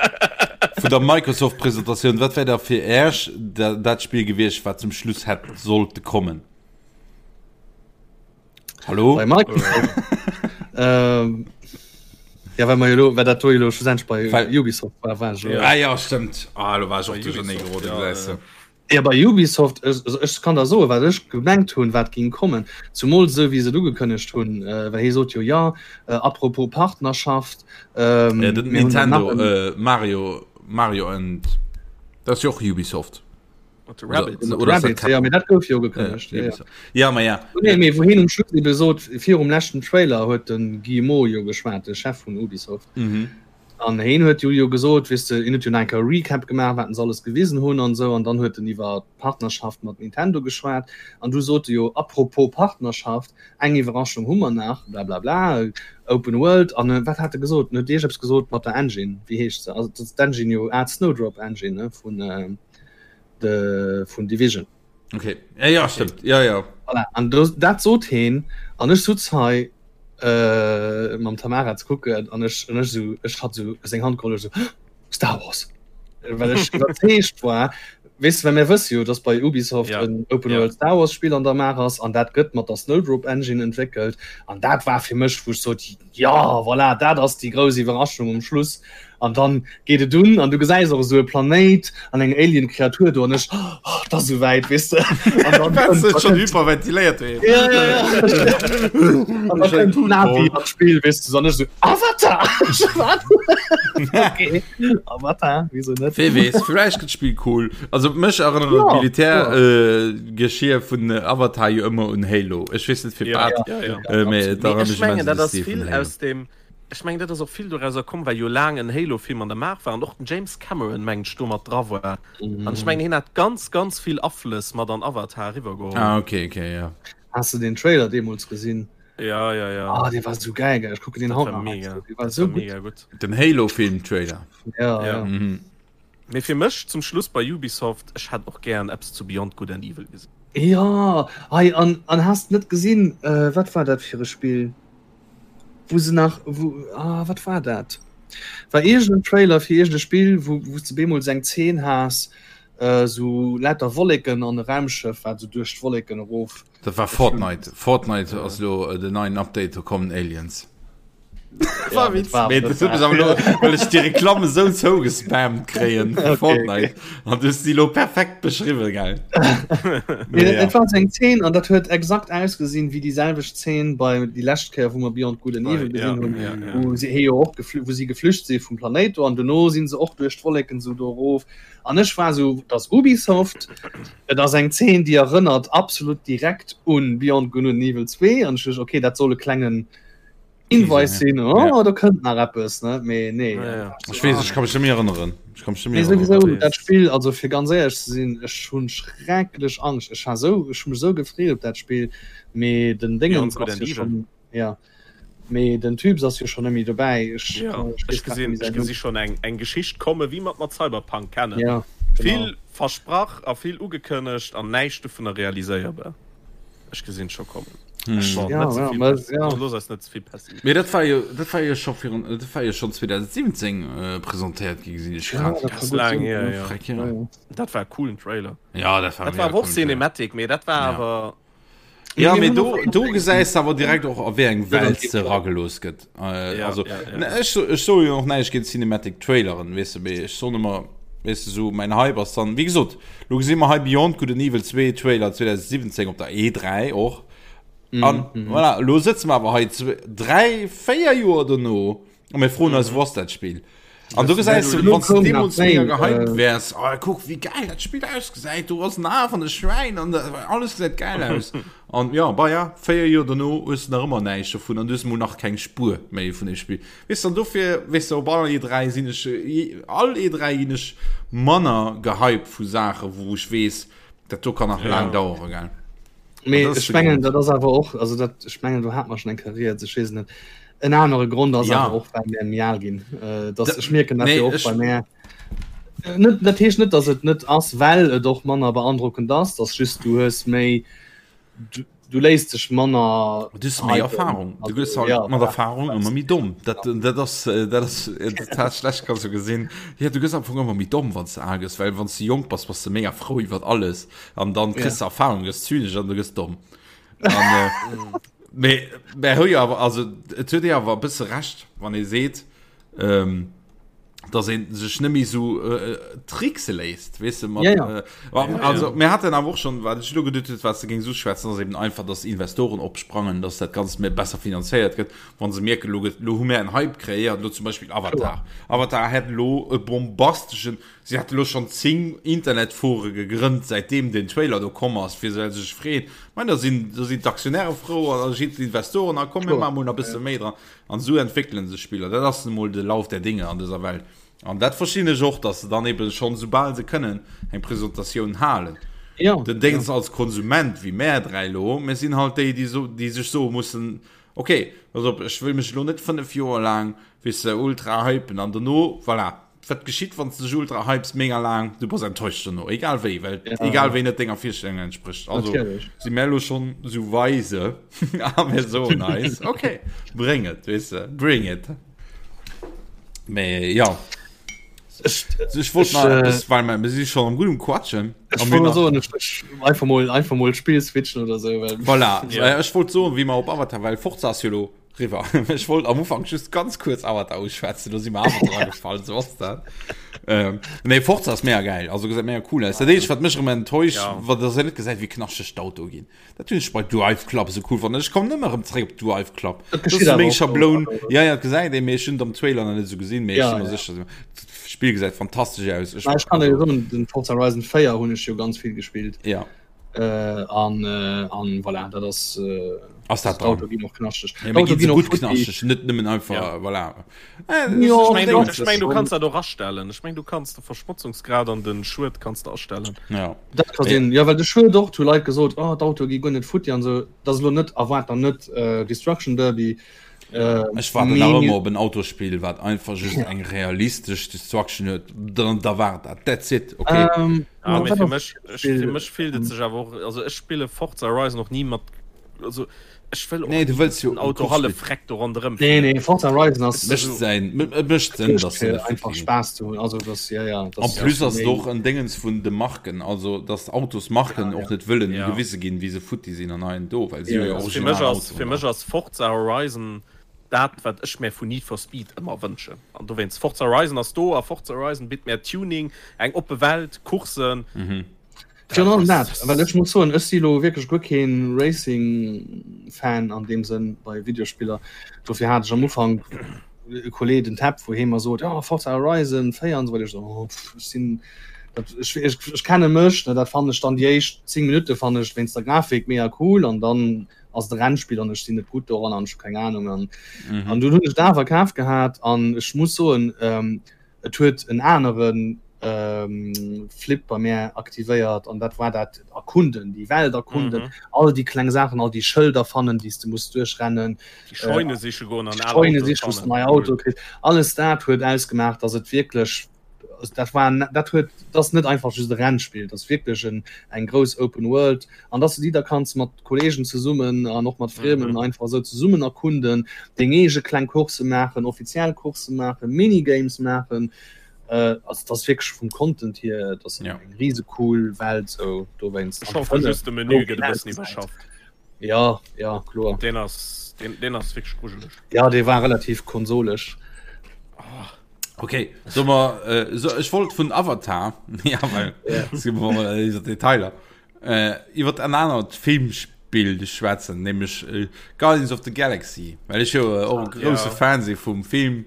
vun der Microsoft-Presentatioun, wat wär da fir Äerch da, dat Spill gewiescht, wat zum Schluss hätt sollte kommen? Hallo? Bei Microsoft. ähm, ja, well mer jo lo, well dat do jo lo schlussendlech bei Well- Ubisoft war, war ech elo. Ja. Ah ja, stimmt. Ah, lo war ech och Bei duerchernee Ubisoft, geroden, ja, gesäis de. äh, Ja, bei Ubisoft, ech, also ech kann der soen, wat ech gemengt hunn, wat ging kommen. Zumol esou wéi se et ugekënnegt hunn, äh, well hie sot jo, ja, äh, apropos Partnerschaft, ähm, Ja, den mir hunn dann Nintendo, nach en, äh, Mario, Mario and, dat ass jo och Ubisoft. Mat de Rabbids. Oder, oder ass dat Rabbids, ja, mee dat gouf jo ugekënnegt. Ja, Ja, ja. Ubisoft. Ja, ma ja. Nee, mee wou hien um Schluss ebe sot, virum leschten Trailer huet de Guillemot jo geschwat, de Chef vun Ubisoft. Mhm. An hien huet jo jo gesot, weess de, hien huet jo nach eng Kéier e Recap gemaach, wat se alles gewisen hunn an esou, an dann huet en iwwer d'Partnerschaft mat Nintendo geschwat. An du sot e jo, apropos Partnerschaft, eng Iwwerraschung hu mer nach, blablabla, Open World. An wat hat e gesot? En huet iergeppes gesot mat der Engine, wéi heescht se? Also dat ass d'Engine jo, ah, d'Snowdrop Engine, ne, vun de, vun Division. Okay. Ja, ja, stimmt. Ja, ja. Voilà. An do, dat sot heen, an ech sutz hei äh, mam Tamara ze kucken, an ech, an ech sou, ech hat sou seng Hand geholl, ech sou, Star Wars. Well ech iwwerzeegt war, weess de, well mir wësse jo, dass bei Ubisoft Ja. en Open Ja. World Star Wars Spill an der Maach ass, an dat gëtt mat der Snowdrop Engine entwéckelt, an dat war fir mech, wou ech sot, Jo, voilà, dat ass déi grouss Iwwerraschung um Schluss. An dann geet et un an du gesäis och esou e Planéit an eng Alien-Kreatur do an ech, oh, et ass esouwäit, weess de. An dann Wars kënnt, du schon hyperventiléiert doheem? Ja, ja, ja. An dann kënnt d'Navi an d'Spill, weess de, an ech esou, Avatar! Wat? Okay, Avatar, wieso net? Wee weess, vläicht gëtt d'Spill cool. Also mech erënnert Ja, d'Militär-Geschir vun Avatar jo ëmmer un Halo. Ech weess net firwat. Ja, ja, ja. Äh, mee et Mee erënnert ech mech immens mengen, un dat de ass Stil vun vill Halo. aus dem, ech mengen, dat ass och vill dorauser komm, well jo laang en Halo-Film an der Maach war an och den James Cameron, mengen ech, do mat dra war. An ech mengen, hien hat ganz, ganz vill Aflëss mat an Avatar eriwwergeholl. Ah, okay, okay, ja. Has du den Trailer deemools gesinn? Ja, ja, ja. Ah, dee war sou geil, gell? Ech kucken den haut nach. Mega. Dee war sou gutt. Mega gutt. Den Halo-Film-Trailer. Ja, ja. ja. Mhm. Mee fir mech zum Schluss bei Ubisoft, ech hätt och gären eppes zu Beyond Good and Evil gesinn. Ja, hei an an has net gesinn, äh, wat war dat fir e Spill? Wou se nach wou ah, wat war dat? War iergend en Trailer fir iergend e Spill, wou wou s de bemol eng Zeen has, äh, sou lauter Wolleken an e Raumschëff, wat sou duerch d'Wolleken erof. Dat war Fortnite. Fortnite ass lo den neien Update, do kommen Aliens. Ja, dat war, Mee dat dat huet mech war. awer lo, well ech déi Reklamm esou zougespammt kréien vu Okay, okay. Fortnite. An du hues déi lo perfekt beschriwwen, gell? Nee, Mee dat, ja. dat war sou eng Zeen an dat huet exakt ausgesinn wéi déi selwecht Zeen bei déi lescht Kéier, wou mer Beyond Good and Bei, Evil ja, gesinn hunn, ja, ja. wou si jo och geflü wou si geflücht si vum Planéit do an dono sinn se och duerch d'Wolleken sou do erof. An ech war sou, et ass Ubisoft, et ass eng Zeen, déi erënnert absolut direkt un Beyond Good and Evil 2 an ech duecht, okay, dat soll e klengen Hinweis sinn, oh, Ja. do kënnt nach eppes, ne? Mee nee. Ja, ja. Ech weess, ech ka mech net méi erënneren. Ech ka mech net méi Mee erënneren. souwisou, Wat dat Spill, also fir ganz éierlech ze sinn, ech hunn schrecklech Angscht. Ech war sou, ech hu mech sou gefreet op dat Spill, mee den Beyond Déngens Good ass and jo Evil. schonn, ja, mee den Typs ass jo schonn net méi dobäi. Ech, Ja, ech ech weess grad net gesinn, méi ech säin gesi Numm. schonn eng, eng Geschicht komme wéi mer et mat Cyberpunk kennen. Ja, genau. Vill versprach a vill ugekënnegt an näischt dovunner realiséierbar. Ech gesinn et scho kommen. Hm. Bon, Ja, net ze ja, vill mä, Pessi ja. looss eis net ze vill Pessi. Mee dat war jo, dat war jo scho virun, dat war jo schonn 2017 äh, presentéiert gi, gesinn ech Ja, grad. dat ka Ass gutt laang sinn, hier, ja. ja. Freck, ja. Ja, ja. Dat war e coolen Trailer. Ja, dat war Dat mega war awer och coolen Trailer. Cinematic, mee dat war Ja. awer. Ja, Mee mee mir hunn do, och do gesäis de awer direkt och a wéi eng Ja, Welt dat se eragelooss gëtt. Äh, Ja, also, ja, ja. ne, ech, ech soe jo och näischt géint Cinematic Traileren, weess de, mee ech soen ëmmer, weess de, sou mäin Hype ass dann, wéi gesot, lo gesi mer hei Beyond Good and Evil 2 Trailer 2017 op der E3 och. An Mhm. voilà, lo sëtze mer awer hei zwe, dräi, véier Joer dono a mir froen eis, wou ass dat Spill? An du gesäis du, Lo wann du koum nach deemools mega méi, gehypt äh, wärs, oh, kuck wéi geil dat Spill ausgesäit, do ass en A van de Schwäin an da- alles gesäit geil aus. An ja, bah ja, 4 Joer dono hues du nach ëmmer näischt dovun an du hues mol nach keng Spuer méi vun dem Spill. Weess du, an dofir, weess du, op all E3 sinn ech, all E3 ginn ech manner gehypt vu Saachen, wou ech weess, dat do kann nach laang Ja. dauere, gell. Mee An dat ass ech de mengen, Grond. dat ass awer och, also dat, ech mengen, do hat mer schonn eng Kéier rieds, ech weess et net. En anere Grond ass Ja. awer och, well mir méi al ginn. Äh, dass, Da- ech mierken dat nee, jo och ech- bei mär. Äh, Net, dat heescht net, dass et net ass, well et och manner beandrockend ass, dass just du hues méi, du, du léiss dech manner Du hues méi hypen. Erfahrung. Du Also, gëss halt ja, mat voilà. Erfahrung ëmmer méi domm. Dat, dat ass, äh, dat ass äh, total schlecht, kannst du gesinn. Ja, du gëss am Fong ëmmer méi domm, wann s du al gëss, well wann s du jonk bass, bass du mega frou iwwer alles. An dann kriss Ja. du Erfahrung, gëss zynesch an du gëss domm. An, äh, mee, mä hu jo awer, also et huet ee awer e bësse Recht, wann ee seet, ähm, dass een sech net méi sou äh, trickse léisst, weess de, mat, Ja, ja. Äh, also mir haten awer och schon, wat ech elo geduet huet, wat s de géings uschwätzen, ass eben einfach, dass Investoren opsprangen, dass dat Ganzt méi besser finanzéiert gëtt, wann se mierken, elo gëtt, elo hu mir en Hype kreéiert, elo zum Beispill Avatar. Avatar hätt elo e bombasteschen, si hat elo schonn 10 Internetfore gegrënnt, säitdeem den Trailer do komm ass, fir se sech freeën. Mein, da sinn, da sinn d'Aktionäre frou an da sinn d'Investoren, a komm, mir Kloer. maache mol nach e bësse méi dran. An esou entwéckelen sech Spiller. Dat ass emol de Lauf der Dinge an dëser Welt. An dat verstinn ech och, dass se dann eben schonn, soubal se kënnen, eng Presentatioun halen. Ja, Den Déngs ja. als Konsument, wéi mär 3 elo, mir sinn halt déi, déi so, déi sech soe mussen, ok, pass op, ech wëll mech elo net 5 Joer laang, weess de, ultra hypen an dono, voilà, wat geschitt, wann s de dech ultra hypes mega laang, du bass enttäuscht dono, egal wéi, well Ja. egal wéi net denger Virstellung entspricht. Also Natierlech. si mär elo schonn esou weise a mir soen eis, ok, bréng et, weess de, bring it. Mee ja, Ech, ech wollt ech, nach äh, eppes, well mer mir si schonn am gutt um Quatschen. ech A mir wollt nach soen, ech, ech, einfach mol, einfach mol d'Spill switchen oder sou, well Voilà, Ja. ech wollt soen, wéi mer op Avatar, well Forza ass jo elo Riwwer. Ech wollt am Ufank just ganz kuerz Avatar uschwätzen, do si mer awer dra gefall, sou ass dat. Ähm, nee, Forza ass mega geil, also gesäit mega cool aus. Dat eenzegt, wat mech erëm enttäuscht, Ja. wat dass een net gesäit, wéi knaschteg d'Autoe ginn. Dat hunn ech bei Drive Club esou cool fonnt. Ech kommen ëmmer erëm zréck op Drive Club. Dat Dat ass geschitt awer meng och Schabloun. do. Ja, ja, dat gesäit ee, mee ech hunn et am Trailer nach net esou gesinn, mee ech Ja, si mer ja. sécher, d'Spill gesäit fantastesch aus. Ech, Mä ech kann dir also, soen, den Forza Horizon 4 hunn ech jo ganz vill gespillt. ja. Äh, an, äh, an voilà, dat ass, äh. Ass dat dran? D'Auto ginn och knaschteg. Ja, mee D'Auto ginn se ginn och gutt futti. knaschteg, net nëmmen einfach, Ja. voilà. Äh, Jo, Ech meng, du, dat ech meng, du schon. kanns dat och astellen. Ech meng, du kanns de Verschmotzungsgrad an den Schued kanns de astellen. Ja. Dat ka Mee sinn. Jo, well de Schued och, hu Leit gesot, oh, d'Autoe gi guer net futti an esou. Dat ass elo net, erwaart dann net äh, Destruction Derby. Äh, ech waarden nach mee ëmmer op en Autosspill, wat einfach just eng realistesch Destruction huet. Dann da war dat. That's it, okay. ähm, Ah, mee wat fir ass mech, ech, fir Spill? mech fillt et sech awer och, also ech spille Forza Horizon och ni mat, also ech wëll och Nee, du ni, wëlls dass jo den e Auto Course hallef spillen. freck do ronderëm Nee, fiert. nee, Forza Horizon Et ass mécht säin, et mécht Sënn, mécht dass se fir net einfach futti ginn. Spaass ze hunn. Also das, ja, ja, En das plus ass ass et méi och en Déngens vun de Marken, also dass d'Autosmarken ja, och ja. net wëllen Ja. gewise ginn, wéi se futti sinn an hei an do, well si Ja, hu jo ja. Also fir mech original ass, Autoen fir da. mech ass Forza Horizon dat, wat ech mär vun Need for Speed ëmmer wënschen. An dowéinst, Forza Horizon ass do a Forza Horizon bitt mär Tuning, eng oppe Welt, Coursen. Virun allem dat, well ech muss soen, ech si lo wierklech guer keen Racing-Fan an deem Sënn bei Videospiller. Dofir hat ech am Ufank e Kolleg, den Tab, wou hee mer sot, jo Forza Horizon 4 an esou weider. Ech sou, oh pff, ech sinn dat, ech, ech, ech kenne mech, ne, dat fannen ech dann déi éischt 10 Minutte fannen ech wéinst der Grafik mega cool an dann ass et e Rennspill an ech sinn net gutt doran an ech hu keng Anung an an dunn hunn ech et awer kaf gehat an ech muss soen, Et huet en anere Flip bei mär aktivéiert an dat war dat Erkunden, déi Welt erkunden, mm -hmm. all déi kleng Saachen, all déi Schëlder fannen, déi s de muss duerchrennen, déi Scheune siche goen an Scheune siche, wou s de nei Auto kriss. Alles dat huet ausgemaach, dass et wierklech dat war dat huet dat ass net einfach just e Rennspill, dat ass wierklech en eng grouss Open World an dass du déi da kanns mat Kolleegen zesummen an och mat Friemen mm -hmm. einfach esou zesummen erkunden, deng eege kleng Course maachen, offiziell Course maachen, Minigames maachen. Äh, also das ass wierklech vum Content hier, das ass ja. eng riese cool Welt sou dowéinst. Ech hoffe just de Menü gëtt e bëssen iwwerschafft. Ja, ja, kloer. Deen ass, deen, deen ass wierklech grujeleg. Ja, dee war relativ konsolesch. Oh. Okay, so mal, äh, so, ich wollte vun Avatar ja, weil, ja. Detailer äh, iwwer en anert Filmspiel schwätzen, nämlich äh, Guardians of the Galaxy, well ech jo äh, och e grouse ja. Fan si vum Film,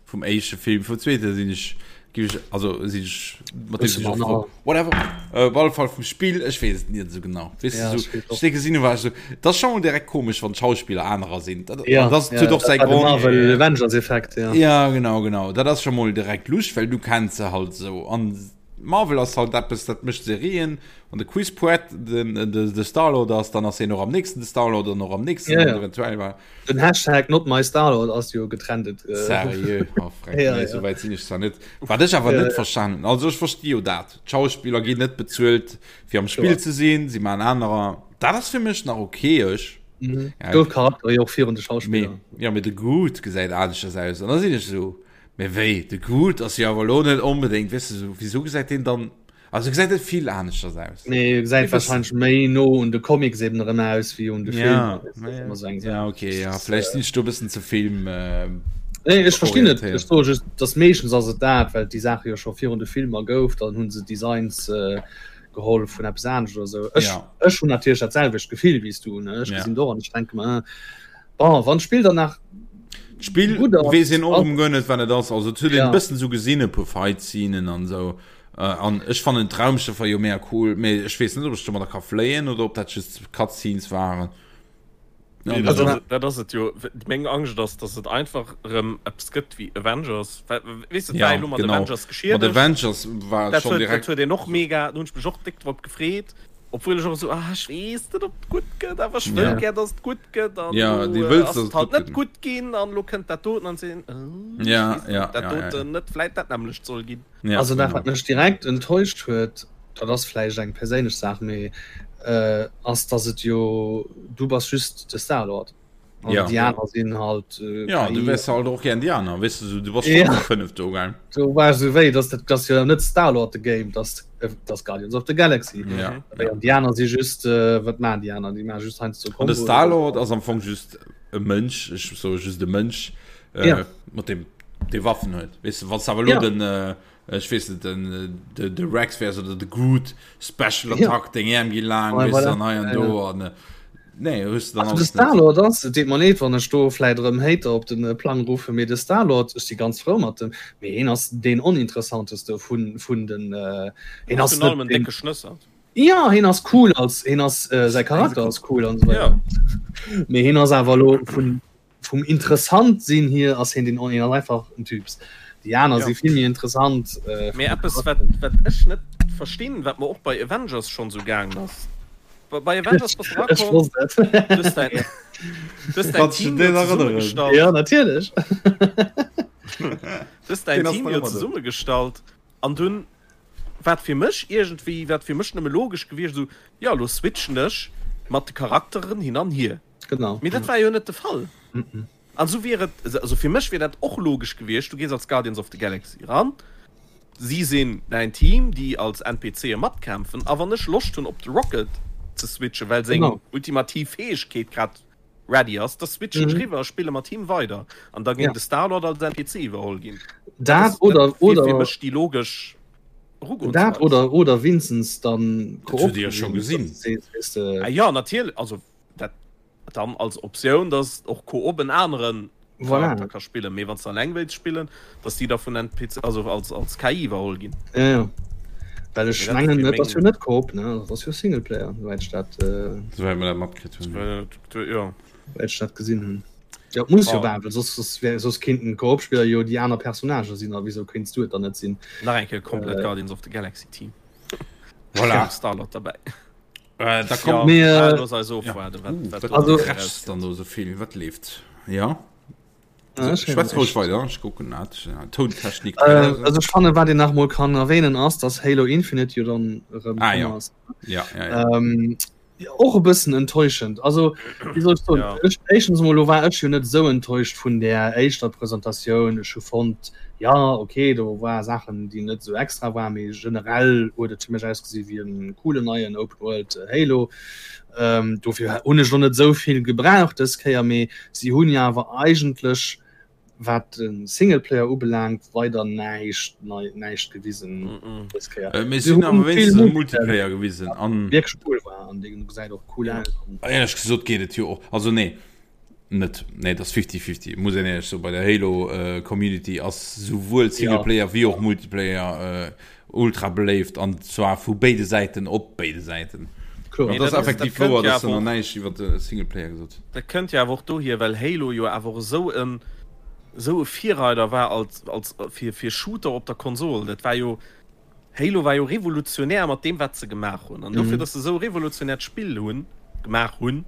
vum éischte Film, vum zweete sinn ech gi ech also sinn ech mat dem sinn ech whatever äh, op alle Fall vum Spiel, ech weess et net esou genau. Weess Ja, du, so, spielt ech denke sinn war so, das schon mal direkt komisch, wann d'Schauspieler anerer sinn. Dat, Ja, an das ja, huet och dat säi war de Grond. Marvel Avengers Effekt, ja. Ja, genau, genau. Dat ass schon mol direkt lusch, well du kenns se halt so. An Marvel ass halt eppes, dat mécht Serien. Wann de Chris Pratt den, de, de Star-Lord ass, dann ass hien och am nächsten de Star-Lord an och am nächsten Ja, an ja. eventuell war. Den Hashtag not my Star-Lord ass jo getrendet. Äh, Seriö? Oh, freck, Ja, nee, ja. sou wäit sinn ech zwar net. Wat ech awer Ja, net ja. verstanen hunn, also ech versti jo dat, d'Schauspiller ginn net bezuelt fir am Spill Kloer. ze sinn, si maachen anerer, dat ass fir mech nach okay, ech. Mhm. Ja, Gouf Charakter jo och virun de mee, Schauspiller. ja, mee de Groot gesäit aneschters aus an da sinn ech esou, Mee wéi, de Groot ass jo awer elo net onbedéngt, weess de, sou, wisou gesäit deen dann, also gesäit net vill aneschters aus. Nee, gesäit Wéi wëssen. wahrscheinlech méi no un de Comics eben erëm aus wéi un de Ja, Filmer, weess de, dat ass ëmmer sou eng ja, Saach. okay, ja, vläicht sinn ech do e bëssen ze Film Nee, ech verstinn et, ech orientéiert. soe just, dass meeschtens ass et dat, well déi Saache jo scho virun de Filmer gouf, dann hu se Designs geholl vun eppes anescht oder sou. Ech, Ja. ech hunn natierlech dat selwecht Gefill wéi s du, ne, ech Ja. gesinn et och an ech denke mer, Bon, wann d'Spill dann nach D'Spill gutt ass, weess een och ass erëm guer net wat et ass. Also et huet een ja. e bëssen esou gesinn, e puer Fight-Scenen an esou. An ech fannen d'Raumschëffer jo mega cool, mee ech weess net ob ech domadder ka fléien oder ob dat just Cutscenes waren. Nee, dat ass, dat ass et jo. Meng Angscht ass, dass et einfach erëm eppes gëtt wéi Avengers. Weess de, et war Ja, elo mat genau. Avengers Mat geschiedegt. Avengers war et Dat schonn huet, dat direkt. huet een och mega, do hunn ech mech och déck drop gefreet. Obwuel ech och esou, ah, ech weess net, ob et gutt gëtt, awer ech wëll Ja. gär, dass et gutt gëtt. An Ja, elo du wëlls, ass dass et et halt gutt net gëtt. gutt ginn an elo kënnt dat doten an sinn, oh, ech Ja, weess net, ja, ob dat ja, ja, ja. doten net vläit dat nämmlecht soll ginn. Ja, Also dat, genau. wat mech direkt enttäuscht huet, dat ass vläicht eng perséinlech Saach, mee ass, dass et jo, du bass just de Star-Lord. An Ja. déi aner sinn halt äh, Ja, du KI. wärs halt och gern déi aner, weess de, sou, du bass schon Ja. zu 5 do, gell? Do war so wéi, dass dat das jo net Star-Lord the Game, das, äh, das Guardians of the Galaxy. Ja. Mhm. Wéi an déi aner si just, äh, wat maachen déi aner? Déi maache just heiansdo An de Komboen. Star-Lord ass am Fong just e Mënsch, ech soe just e Mënsch, äh, Ja. mat deem dee Waffen huet. Weess de, wann s de awer elo Ja. den, äh, Ech weess net, den de, de Rex wärs oder de Groot Special Ja. Attack, deng Äerm gi laang, Ouais, weess voilà. an hei an Ja, do ja. an äh, nee, hues du dann Also de alles net. Star-Lord ass, et deet mer leed, wann ech do vläit erëm Hater op den Plang ruffen, mee de Star-Lord, ech si ganz frou mat dem, mee hien ass deen oninteressanteste vun, vun den, hien ass Virun allem net en deen, décke Schnëssert. Ja hien ass cool als hien ass äh, säi Charakter ass cool an so Ja. Mee hien ass awer lo vun vum interessant sinn hier ass hien den hien ass einfach en Typs. Déi aner Ja. si vill méi interessant. Äh, Mee vum eppes wat Charakter. wat ech net verstinn, wat mer och bei Avengers schonn sou gaangen ass. Bei bei Avengers bass du Ech erakomm, wosst et. du hues däin du hues däin Kannst du Team den jo erënneren? zesummegestallt. Ja natierlech. Du hues däin Den ass Team nach jo ëmmer do. zesummegestallt an dunn wat fir mech iergendwéi, wat fir mech nëmme logesch gewiescht, esou, jo elo switchen ech mat de Charakteren hin an hier. Genau. Mee dat war jo net de Fall. An esou wier et, also fir mech wier dat och logesch gewiescht, du gees als Guardians of the Galaxy eran, si sinn däin Team, déi als NPCe matkämpfen, a wann ech Loscht hunn op de Rocket ze switchen, well seng Genau. ultimativ Fäegkeet grad ready ass, da switchen ech Mhm. riwwer a spille mat him weider. An da géing Ja. de Star-Lord als NPC iwwerholl ginn. Dat Dat ass, dat oder, wier fir oder, mech déi logesch dat Erugoensweis. oder, oder winstens dann Dat hutt Dir jo scho gesinn. dass du sees, weess de, Ah ja, natierlech, also dat dann als Optioun, dass och Koop en aneren Voilà. Charakter ka spillen, mee wann s de alleng wéilts spillen, dass déi da vun NPC, also als, als KI iwwerholl ginn. Ja, ja. Well ech Mee dat mengen, fir et ass jo meng net Koop, ne? Dat ass jo Singleplayer, souwäit ech dat, äh, Souwäit mer dat matkritt hunn. Äh, ja. souwäit ech dat gesinn hunn. Ja, et muss jo Oh. war, well soss, soss, wär, soss kéinten Koop-Spiller jo déi aner Personnagë sinn, a wieso kéints du et dann net sinn? Nach eng Kéier komplett Äh, Guardians of the Galaxy Team. Voilà. Star-Lord derbäi. Äh, da kommt Ja, Mee, ah, äh, looss eis ja. ofwaarden, wat, Uh, wat wat do also, nach krächzt dann erauskënnt. do sou vill? Wat leeft? Ja. ja, ech héieren Schwätz roueg näischt. weider, ech kucken dat. Tountechnik. Äh, also ech fanne wat een nach mol kann erwähnen ass, dass Halo Infinite jo dann erëm Ah komm ja. ass. Ja, ja, ja. Ähm, och e bëssen enttäuschend. Also wéi soll ech soen, Ja. ech éischtens emol lo war ech jo net esou enttäuscht vun där éischter Presentatioun. Ech hu fonnt, ja okay, do war Saachen déi net esou extra waren, mee generell huet et fir mech ausgesi wéi en coolen neien Open World Halo. Ähm, dofir hunn ech lo net esou vill gebraucht dës Kéier, mee si hunn jo awer eigentlech wat de Singleplayer ubelaangt weider näischt nei näischt gewisen Mm -mm. dës Kéier. Äh, mee Si si hunn hunn awer vill wéinstens e Multiplayer Multiplayer gewisen an wierklech cool war an dee gesäit och cool Ja. aus. éierlech gesot geet et jo och, also nee, net, nee, et ass fifty-fifty, muss een éierlech soen, bei der Halo äh, Community ass souwuel Ja. Singleplayer wéi och Multiplayer äh, ultra beléift an zwar vu béide Säiten op béide Säiten. Kloer. An Mee dat ass dat ass, dat effektiv kënnt wouer, jo dass se awer nach och, näischt iwwer de Singleplayer gesot hunn. dat kënnt jo awer och dohier, well Halo jo awer och esou en esou e Virreider war als als fir fir Shooter op der Konsol. Dat war jo Halo war jo revolutionär mat deem wat se gemaach hunn. An dofir, Mhm. datt se esou e revolutionäert Spill hunn gemaach hunn,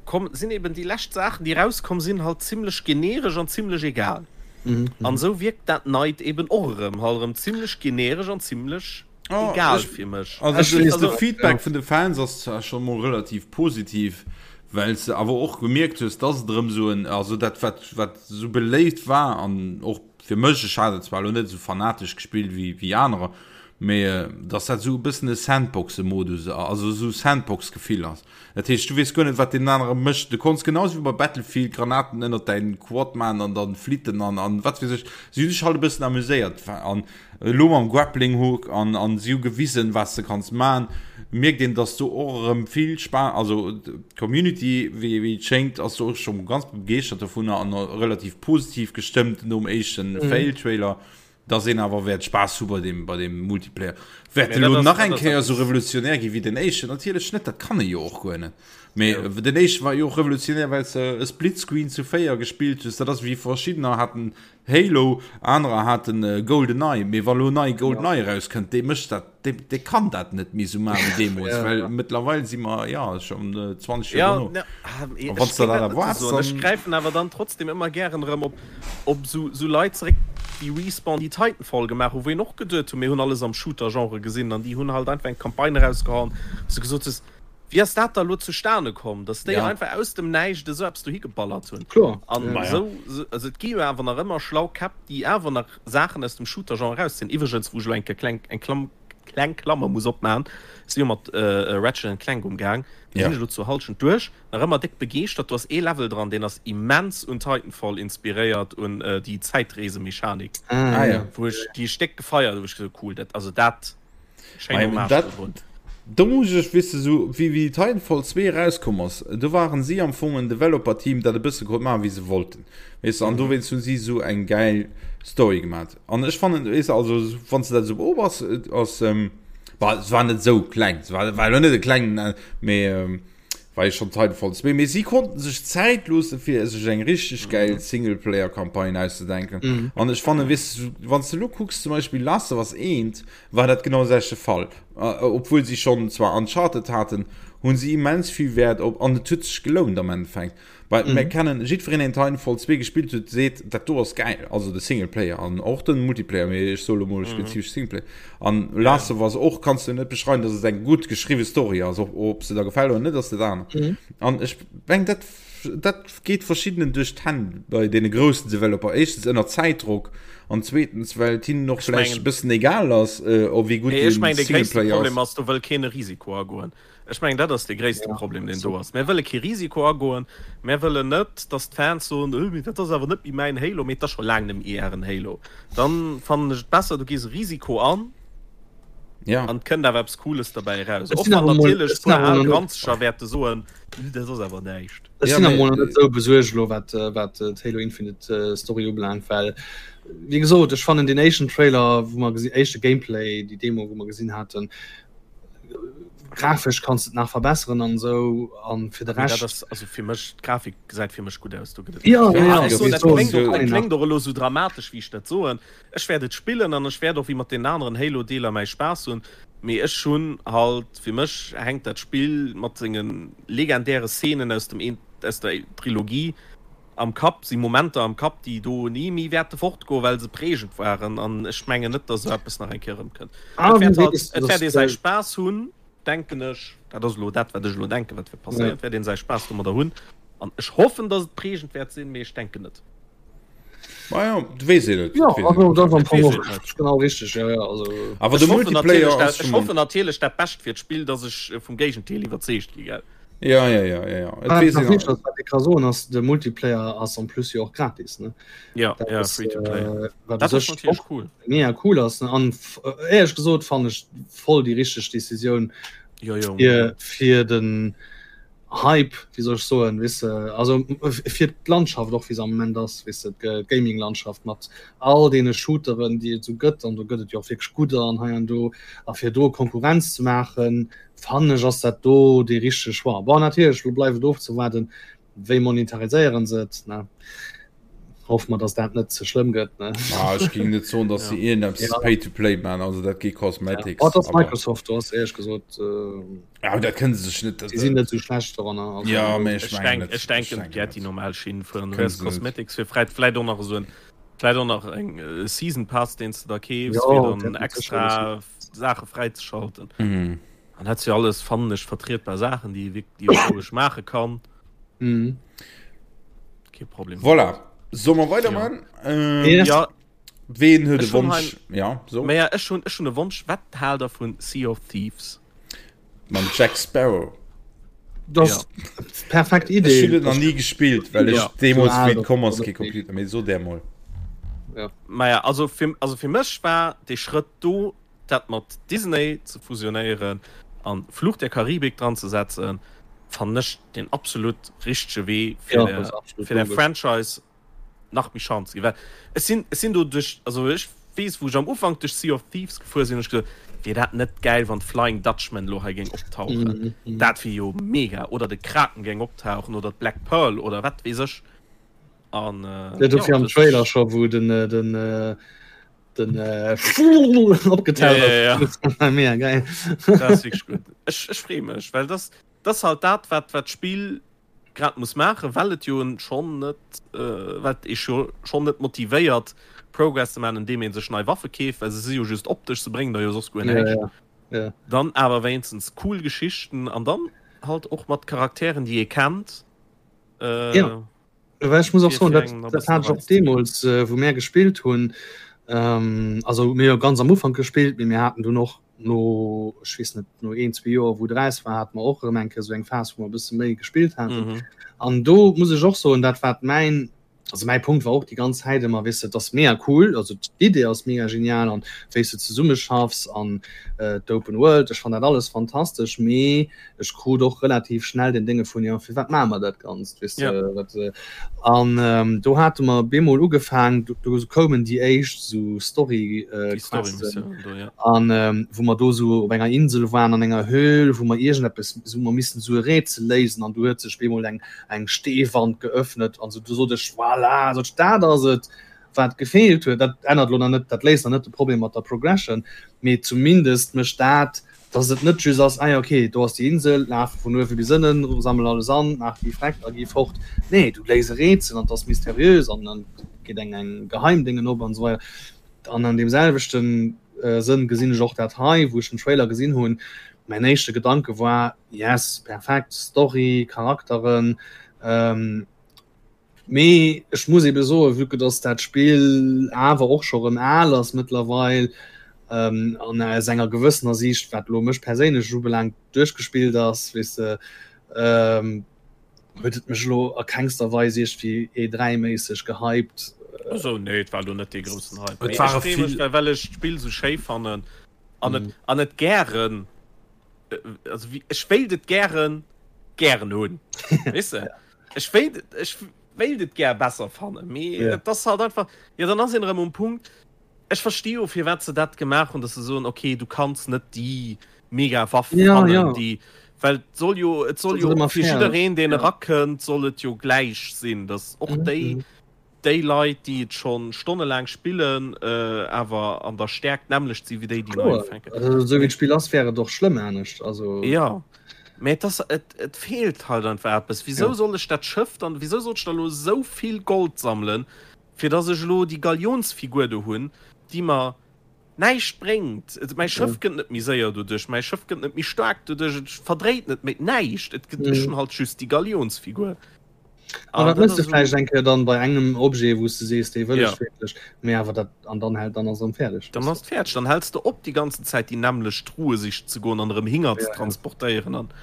komm sinn eben déi lescht Saachen déi erauskomm sinn halt zimlech generesch an zimlech egal. Mhm. An esou wierkt dat neit eben och erëm halt erëm zimlech generesch an zimlech Oh, egal ech, fir mech. also Ech de, weess de net, Feedback ja. vun de Fans ass zwar scho mol relativ positiv, well s de awer och gemierkt hues, dass et erëm esou en, also dat wat wat esou beléift war an och fir mech, ech hat et zwar elo net esou fanatesch gespillt wéi wéi anerer, mee dass dat esou e bëssen e Sandboxe-Modus, also esou Sandbox-Gefill ass. Dat heescht, du weess guer net, wat deen anere mécht. Du konns genau esou wéi bei Battlefield Granaten ënnert däin Quad man an dann flitten an an wat weess ech. Si hunn sech halt e bëssen amuséiert an elo mam Grappling Hook an an si hu gewisen, wat s de kanns man. Mierkt een, dass do och erëm vill Spa, also d'Community, wéi wéi et schéngt, ass do och scho ganz begeeschtert dovunner an relativ positiv gestëmmt nom éischten Fail-Trailer. Dass een awer wäert Spaass hu bei deem, bei deem Multiplayer. Wäert Mee elo dat ass, nach dat eng ass Kéier esou eppes. revolutionär gi wéi den éischten? Natierlech net, dat kann e jo och guer net. Mee Jo. den éischte war jo och revolutionär, well s de e Splitscreen zu 4 gespillt hues. Dat ass wéi verschiddener haten Halo, anerer haten GoldenEye. Mee wa lo nei Ja. GoldenEye erauskënnt, dee mécht dat, dee, dee kann dat net méi esou maachen wéi deemools, Ja. well mëttlerweil si mer, jo, schonn 20 Joer Ja, dono. ne, ah, A ech wann s de géing dat dat net esou erwaarts, soen. Ech dann. gräifen awer dann trotzdem ëmmer gären erëm op op sou sou Leit zeréck déi Respawn déi Titanfall gemaach hu wou een och geduet hu mir hunn alles am Shooter Genre gesinn an déi hunn halt einfach eng Campagne erausgehauen wou s de gesot hues wéi ass dat da lo zustane komm dass déi Ja. einfach aus dem Näischt esou eppes dohi geballert hunn Kloer, an ja. Maja. esou sou also et gi jo awer nach ëmmer schlau Käpp déi awer nach Saachen aus dem Shooter Genre erausziehen. Iwwregens wou ech lo eng Kéier kleng eng Klamm kleng Klammer muss opmachen ech si jo mat Ratchet and Clank umgaang do Ja. sinn ech lo zur Halschent duerch Nach ëmmer déck begeeschtert. Do ass ee Level dran, deen ass immens un Titanfall inspiréiert, un déi Zäitreesemechanik, Ah, Ah ja. ja. wou ech déi ech déck gefeiert hu, wou ech gesot hu, cool, dat, also dat, schéin Mei, Hommage dat, dodrun. do muss ech, weess de, sou wéi, wéi Titanfall 2 erauskomm ass, do waren si am Fong en Developer-Team, dat e bësse konnt maachen, wéi se wollten, weess de, an dowéinst hunn si sou eng gäil Story gemat. An ech fannen, weess de, also wann s de dat esou beobachts, ass. War, se war net esou kleng, se war, war elo net e klengen, mee ähm, war jo schon Titanfall 2, mee si konnten sech Zäit loosse fir sech eng richteg gäil Singleplayer-Campagne auszedenken. Mhm. An ech fannen, weess du, wann s du elo kucks, zum Beispill Last of Us 1, war dat genau de selwechte Fall. Äh, obwuel si schonn zwar Uncharted haten, hunn si immens vill Wäert op, an et huet sech gelount am Endeffekt. Well mm. mir kennen jiddwereen deen Titanfall 2 gespillt huet, seet dat do ass geil, also de Singleplayer an och den Multiplayer, mee ech soe lo mol mm. spezifesch Singleplayer. An Last of Us och kanns du net beschreiwen, dass et eng gutt geschriwwe Story ass, ob, ob se der gefält oder net ass dat aner. Mm. An ech meng dat dat geet verschiddenen duerch d'Hänn bei deene groussen Developer. Éischtens ënner Zäitdrock an zweetens well et hinnen och vläicht e bëssen egal ass, äh, ob wéi gutt den Singleplayer ass. Problem ass, do wëll keen e Risiko agoen. Ech mengen, dat ass dee gréisste Problem, deen do ass. Mär wëlle kee Risiko agoen. Mär wëllen net, datt d'Fans soen, Öh, mee dat ass awer net méi mäin Halo. Mee et ass scho laang net méi ären Halo. Dann fannen ech et besser, du gees e Risiko an an et kënnt awer eppes Cooles derbäi eraus. Och wann natierlech e puer al Granzeger wäerte soen, Öh, dat ass awer näischt. Ech sinn emol net esou besuergt elo, wat d'Halo Infinite Story ubelaangt, well, wéi gesot, ech fannen deen éischten Trailer, wou mer gesi, éischte Gameplay, déi Demo, wou mer gesinn haten, grafesch kanns et nach verbesseren an esou an fir de Rescht. Dat ass also fir mech d'Grafik gesäit fir mech gutt aus do gëtt et ja, ja, ja, ech soen, dat kléngt och dat kléngt och elo sou dramatesch wéi ech dat soen. Ech wäert et spillen an ech wäert och wéi mat deenen aneren Halo Deeler mäi Spaass hunn, mee ech hunn halt fir mech hänkt dat Spill mat senge legendäre Szenen aus dem aus der Trilogie am Kapp, si Momenter am Kapp, déi do ni méi wäerte fortgoen, well se prägend waren. An ech mengen net, datt esou eppes nach eng Kéier erëmkënnt. Ah, Et wäert wéi halt, weess et wäert ee dass säi Spaass hunn, denken ech. Dat ass elo dat, wat ech elo denken, wat wäert passéieren. Et wäert een säi Spaass domadder hunn. An ech hoffen, datt et prägend wäert sinn, mee ech denken net. Maja, du weess een net. Ja, also dat ass am Et Fong weess och een net. genau richteg. Ja, ja, also. Awer Ech de hoffen Multiplayer natierlech ass dat, ech schon. hoffen natierlech dat Bescht fir d'Spill, datt ech vum Géigendeel iwwerzeegt gi, gell? Ja, ja, ja, ja, ja. Et Wat weess nach een wichteg ass, wat ik ka soen, ass de Multiplayer ass en plus jo och gratis, ne? Ja, Dat ja, ass, free to play. äh, wat Dat u ass sech natierlech och cool. mega cool ass, ne? An f- äh, éierlech gesot fannen ech voll déi richteg Decisioun Jo, jo, fir, unbedingt. fir den Hype, wéi soll ech soen, weess de, also fir d'Landschaft och wéi se am Moment ass, weess de, d'Gaming-Landschaft mat all deene Shooteren, déi et esou gëtt, an do gëtt et jo och wierklech gudder an hei an do, a fir do Konkurrenz ze maachen, fannen ech ass dat do dee richtege Choix. Bon, natierlech, elo bleift et ofzewaarden, wéi monetariséiere se et, ne? Hoffe mer, datt dat net ze schlëmm gëtt, ne? Ah, ech géing net soen, datt se iergendeppes Ja. Pay-to-play maachen, also dat geet Ja. Cosmetics, Oh, et ass awer Microsoft, do ass éierlech gesot, Ja, dat kënne se sech net. Si sinn net esou schlecht doranner. Also, Ja, mee ech Ech mengen denk, net. ech Ech denken, denken wäert déi net. normal Schinn fueren. Du Kënne wäers se net. Cosmetics fir vläit, vläit och nach esou en, vläit och nach eng äh, Season Pass, deen s de da keefs, Ja, fir dann dat huet sécher extra Saache fräizeschalten. Mhm. An dat si alles, fannen ech, vertrietbar Saachen, déi ee wierk, déi ee roueg maache kann. Mhm. Kee Problem. Voilà. Solle mer weiderman? Ja. Ähm, Yes. Ja, Ween huet e Ech hunn Wonsch? Ja, so. Maja, ech hunn, ech hunn e Wonsch. Wat haalt der vun Sea of Thieves? Mam Jack Sparrow. Das ja. perfekt Idee. Ech hunn et nach nie gespillt, well ech ja. deemools wéi et komm ass kee Computer méi so där mol. Ja. Maja, also fir, also fir mech war dee Schrëtt do, dat mat Disney ze fusionéieren an Fluch der Karibik dran ze setzen, fannen ech den absolut richtege Wee fir ja, der, fir der Franchise nach méi Chance ginn. Well ech sinn, ech sinn do duerch, also ech weess, wou ech am Ufank duerch Sea of Thieves gefuer sinn, hunn ech gesot, wier dat net gäil, wann d'Flying Dutchman elo hei géing optauchen. Dat wier jo mega. Oder de Kraken géing optauchen oder d'Black Pearl oder wat weess ech. An Ja, dofir jo, am dat Trailer scho, wou den, den, den opgetaucht Ja, ja, ja. ass. Mega geil. Dat ass wierklech gutt. Ech, ech freeë mech, well dat, dat ass halt dat, wat, wat d'Spill grad muss maachen, well et jo schonn net, well et ee jo schonn net motivéiert Progress ze maachen, andeem ee sech nei Waffe keeft, well se si jo just optesch, se bréngen der jo soss guer näischt. Ja, ja, ja. Dann awer wéinstens cool Geschichten an dann halt och mat Charakteren, déi ee kennt. Äh, ja. Well ech muss och soen, dat, dat hat ech och deemools, wou mär gespillt hunn, ähm, also mir jo ganz am Ufank gespillt, mee mir haten dunn och no, ech weess net, no een, zwee Joer, wou et eraus war, hate mer och erëm eng Kéier esou eng Phas, wou mer e bësse méi gespillt haten. Mhm. An do muss ech och soen, dat wat mäin. Also mäi Punkt war och déi ganz Zäit ëmmer, weess de, et ass mega cool, also d'Idee ass mega genial an wéi s de zesummeschaffs an d'Open World, ech fannen dat alles fantastesch, mee ech krut och relativ schnell den Dénge vun, jo firwat maache mer dat Ganzt, weess de, wat. An do hate mer bemol ugefaang, do koumen déi éischt esou Story-Questen an wou mer do esou op enger Insel waren, an enger Höhl, wou mer iergendeppes, wou mer missten esou e Rätsel léisen an du huet sech bemol eng eng Steewand geöffnet an sou, du sot ech, voilà, sot ech, dat ass et, wat gefeelt huet. Dat ännert lo nach net, dat léist nach net de Problem mat der Progression, mee zumindest mécht dat, dass et net just ass, ah ja, okay, do ass déi Insel, laf vun uewe bis ënnen, sammel alles an, maach déi Freck a gi fort. Nee, du léis e Rätsel an et ass mysteriös an dann geet eng eng Geheimdéngen op an esou weider. An an deem selwechten Sënn gesinn ech och dat hei, wou ech den Trailer gesinn hunn, mäin éischte Gedanke war, Yes, perfekt, Story, Charakteren. Mee ech muss ebe soen, vue que dass dat Spill awer och scho rëm al ass mëttlerweil an aus enger gewëssener Siicht, wat elo mech perséinlech ubelaangt, duerchgespillt ass, weess de, huet et mech elo a kengster Weis iergendwéi E3-méisseg gehypt. Also nee, et war elo net dee groussen Hype. Mee ech freeë mech, well ech d'Spill esou schéi fannen an et an et gären. also wie, ech wéilt et gären gären hunn weess de ech wéilt ech wéilt et gär besser fannen mee yeah. et ass halt einfach ja dann ass een erëm um Punkt ech versti jo firwat se dat gemaach hunn dass se soen okay du kanns net déi mega Waff ja, fannen ja. déi well et soll jo et soll jo fir jiddereen deen ja. erakënnt soll et jo gläich sinn dass och mhm. déi mhm. déi Leit, déi et schonn stonnelaang spillen, awer an der Stäerkt d'nämmlecht si wéi déi, déi nei ufänken. Also esou wéi d'Spill ass, wär et och schlëmm anescht. Also. Jo, mä et ass, et, et feelt halt einfach eppes. Wisou soll ech dat Schëff dann, wisou sollt ech da elo esou vill Gold sammelen, fir dass ech elo déi Galionsfigur do hunn, déi mer näischt bréngt? Et, mäi Schëff gëtt net méi séier doduerch, mäi Schëff gëtt net méi staark doduerch, et verdréit net méi, näischt. Et gëtt, ech hunn halt just déi Galionsfigur. An dat mëss de vläicht eng Kéier dann bei engem Objet, wou s de sees, dee wëll ech wierklech, mee awer dat, an dann hält, dann ass erëm fäerdeg. Dann ass et fäerdeg, dann häls de op déi ganzen Zäit déi nämmlecht Truhe sichen ze goen an erëm Hinger ze transportéieren an.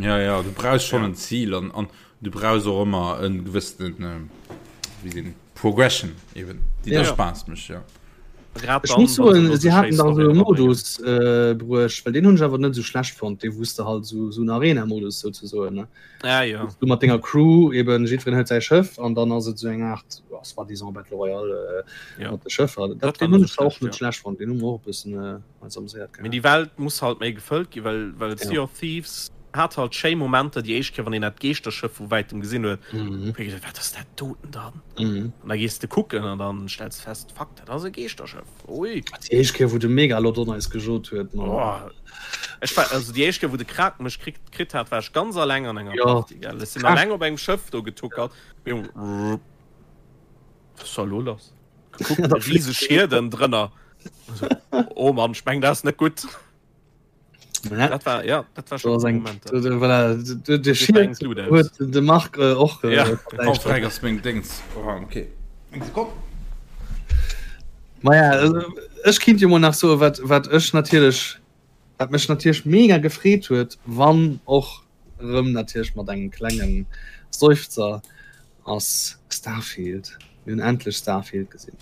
Ja, ja, du brauchs schonn en Zil an, an du brauchs och ëmmer e gewëssenen, wéi seet een, Progression eben, déi der Spaass mécht, jo. Grad Ech muss soen, si haten da esou e Modus bruecht, well deen hunn ech awer net esou schlecht fonnt, dee wou s de halt esou, esou en Arena-Modus souzesoen, ne? Ah, ja. Du mat denger Crew eben jiddwereen huet säi Schëff an dann ass et esou eng Aart ja, soi-disant Battle Royale äh, ja. mat de Schëffer. Dat, dat den hunn ech och net ja. schlecht fonnt, den hu mer och e bëssen äh, eis amuséiert gehat. Mee déi Welt muss halt méi gefëllt gi, well, well ja. Sea of Thieves hat halt schéi Momenter, déi éischt Kéier, wann een dat Geeschterschëff vu wäitem gesinn huet, mhm. huet gedacht, wat ass dat doten dann? Mhm. An da gees de kucken an dann stells du fest, fuck, dat ass e Geeschterschëff. Ui. Déi éischt Kéier, wou de Megalodon eis gejot huet, Mann. Oh. Ech war, also déi éischt Kéier, wou de Kraken mech kritt, kritt hat, war ech ganz alleng an enger ja. Party, gell. Ech sinn alleng op engem Schëff do getuckert. Was ist da lo lass? Gekuckt, rieseg Schierden drënner. Also, oh Mann, ich meng, dat ass net gutt. Ja. Dat war, ja, dat war schon eng Moment. Voilà, de, de Schied huet de Marc äh, och äh, ja. Frag ass meng Dings. Oh, okay. Eng Sekonn. Maja, also, ech kinnt jo mol nach soen, wat, wat ech natierlech, wat mech natierlech mega gefreet huet, wann och rëm natierlech mat engem klengen Seufzer, ass Starfield. Mir hunn endlech Starfield gesinn.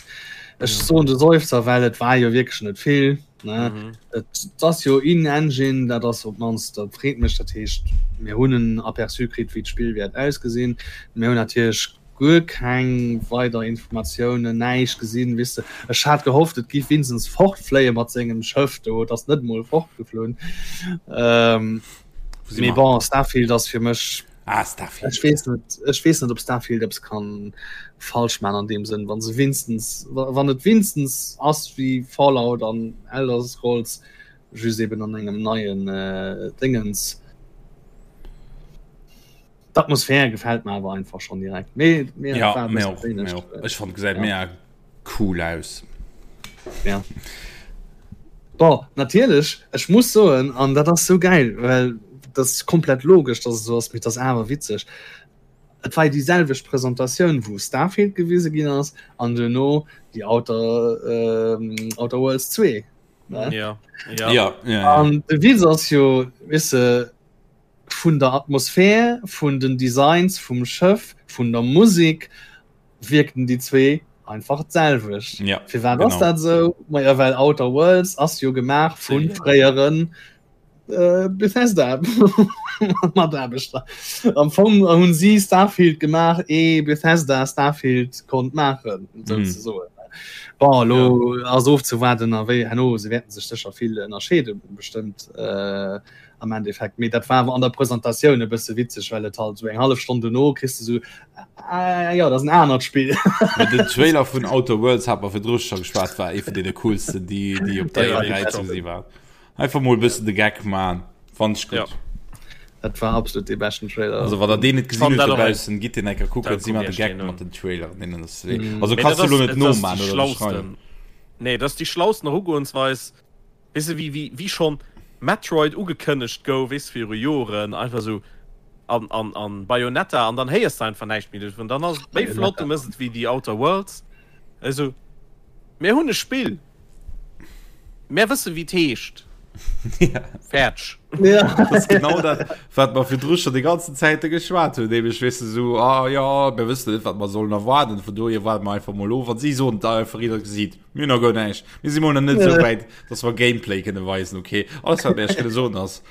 Ech soen de Seufzer, well et war jo wierklech net vill. Ne? Mhm. Et ass jo in-engine, dat ass op d'mannst, dat freet mech, dat heescht, mir hunn en Aperçu kritt, wéi d'Spill wäert ausgesinn. Mir hunn natierlech guer keng weider Informatiounen, näischt gesinn, weess de. Ech hat gehofft, et giff winstens fortfléie mat sengem Schëff do, et ass net emol fortgeflunn. Ähm, mee bon, Starfield ass fir mech Ah, Starfield. Ech weess net, ech weess net, ob Starfield eppes kann falsch man an deem Sënn, wann se winstens, wann et winstens ass wéi Fallout an Elder Scrolls, just eben an engem neien äh, Dingens. D'Atmosphär gefält mir awer einfach schon direkt. Mee, mir ja, war mir och, mir och. Ech fand gesäit ja. mega cool aus. Ja. Bon, natierlech, ech muss soen, an dat ass sou gäil, well dat ass komplett logesch, dass et esou ass, mee et ass awer witzeg, et war jo déi selwecht Presentatioun, wou Starfield gewise ginn ass an duerno déi Outer, Outer Worlds 2, ne? Ja, ja. Ja, ja, ja. An de Witz ass jo, weess de, vun der Atmosphär, vun den Designs vum Schëff, vun der Musek. Wierken déi zwee einfach d'selwecht. Ja, Firwat ass genau. dat esou? Maja well Outer Worlds ass jo gemaach vu fréieren äh, Bethesda Mataarbechter. Am Fong hunn si Starfield gemaach ee Bethesda Starfield konnt maachen, mm. souzesoen. Bon, elo ja. ass ofzewaarden a wéi herno se wäerten sech sécher vill ënnerscheede bestëmmt. Äh, am Endeffekt. Mee dat war awer an der Presentatioun e bësse witzeg, well et halt sou eng hallef Stonn dono kriss de sou, ah jo, dat ass en anert Spill. Mee den Trailer vun Outer Worlds hat mer virdru scho geschwat, war ee vun deene coolsten, déi, déi op der E3 ze gesi waren. Einfach mol e bëssen de Geck man, fand ech gutt. Ja. Dat war absolut dee beschten Trailer. Also wann der deen net gesinn Fand hutt dat och eng- dobaussen, gitt deen eng Kéier kucken, Da si mat de kuck ech Geck deen mat un. den Traileren, deenen ass wéi. Mm. Also Mee kanns dat du lo ass, net et ass déi noman oder beschreiwen. schlausten. Nee, dat ass déi schlausten Erugoensweis. Weess de, wéi, wéi, wéi schonn Metroid ugekënnegt gouf, weess de, viru Joren, einfach esou an, an, an Bayonetta, an dann héiers de einfach näischt méi dovun. Dann ass et méi flott, du mëss et wéi The Outer Worlds, esou, mir hunn e Spill, mär wësse wéi et heescht, Ja. fäerdeg. Ja. Dat ass genau dat, wat mer virdru scho déi ganzen Zäite geschwat hunn, nämlech, weess de, esou, ah jo, mir wëssen net, wat mer sollen erwaarden, vun dohier waarde mer einfach mol of. An si soen et einfach, ier der gesitt. Mir hunn nach guer näischt. Mir si mol nach net esou wäit, dass mer Gameplay kënne weisen. Okay, alles wat mir iech kënne soen ass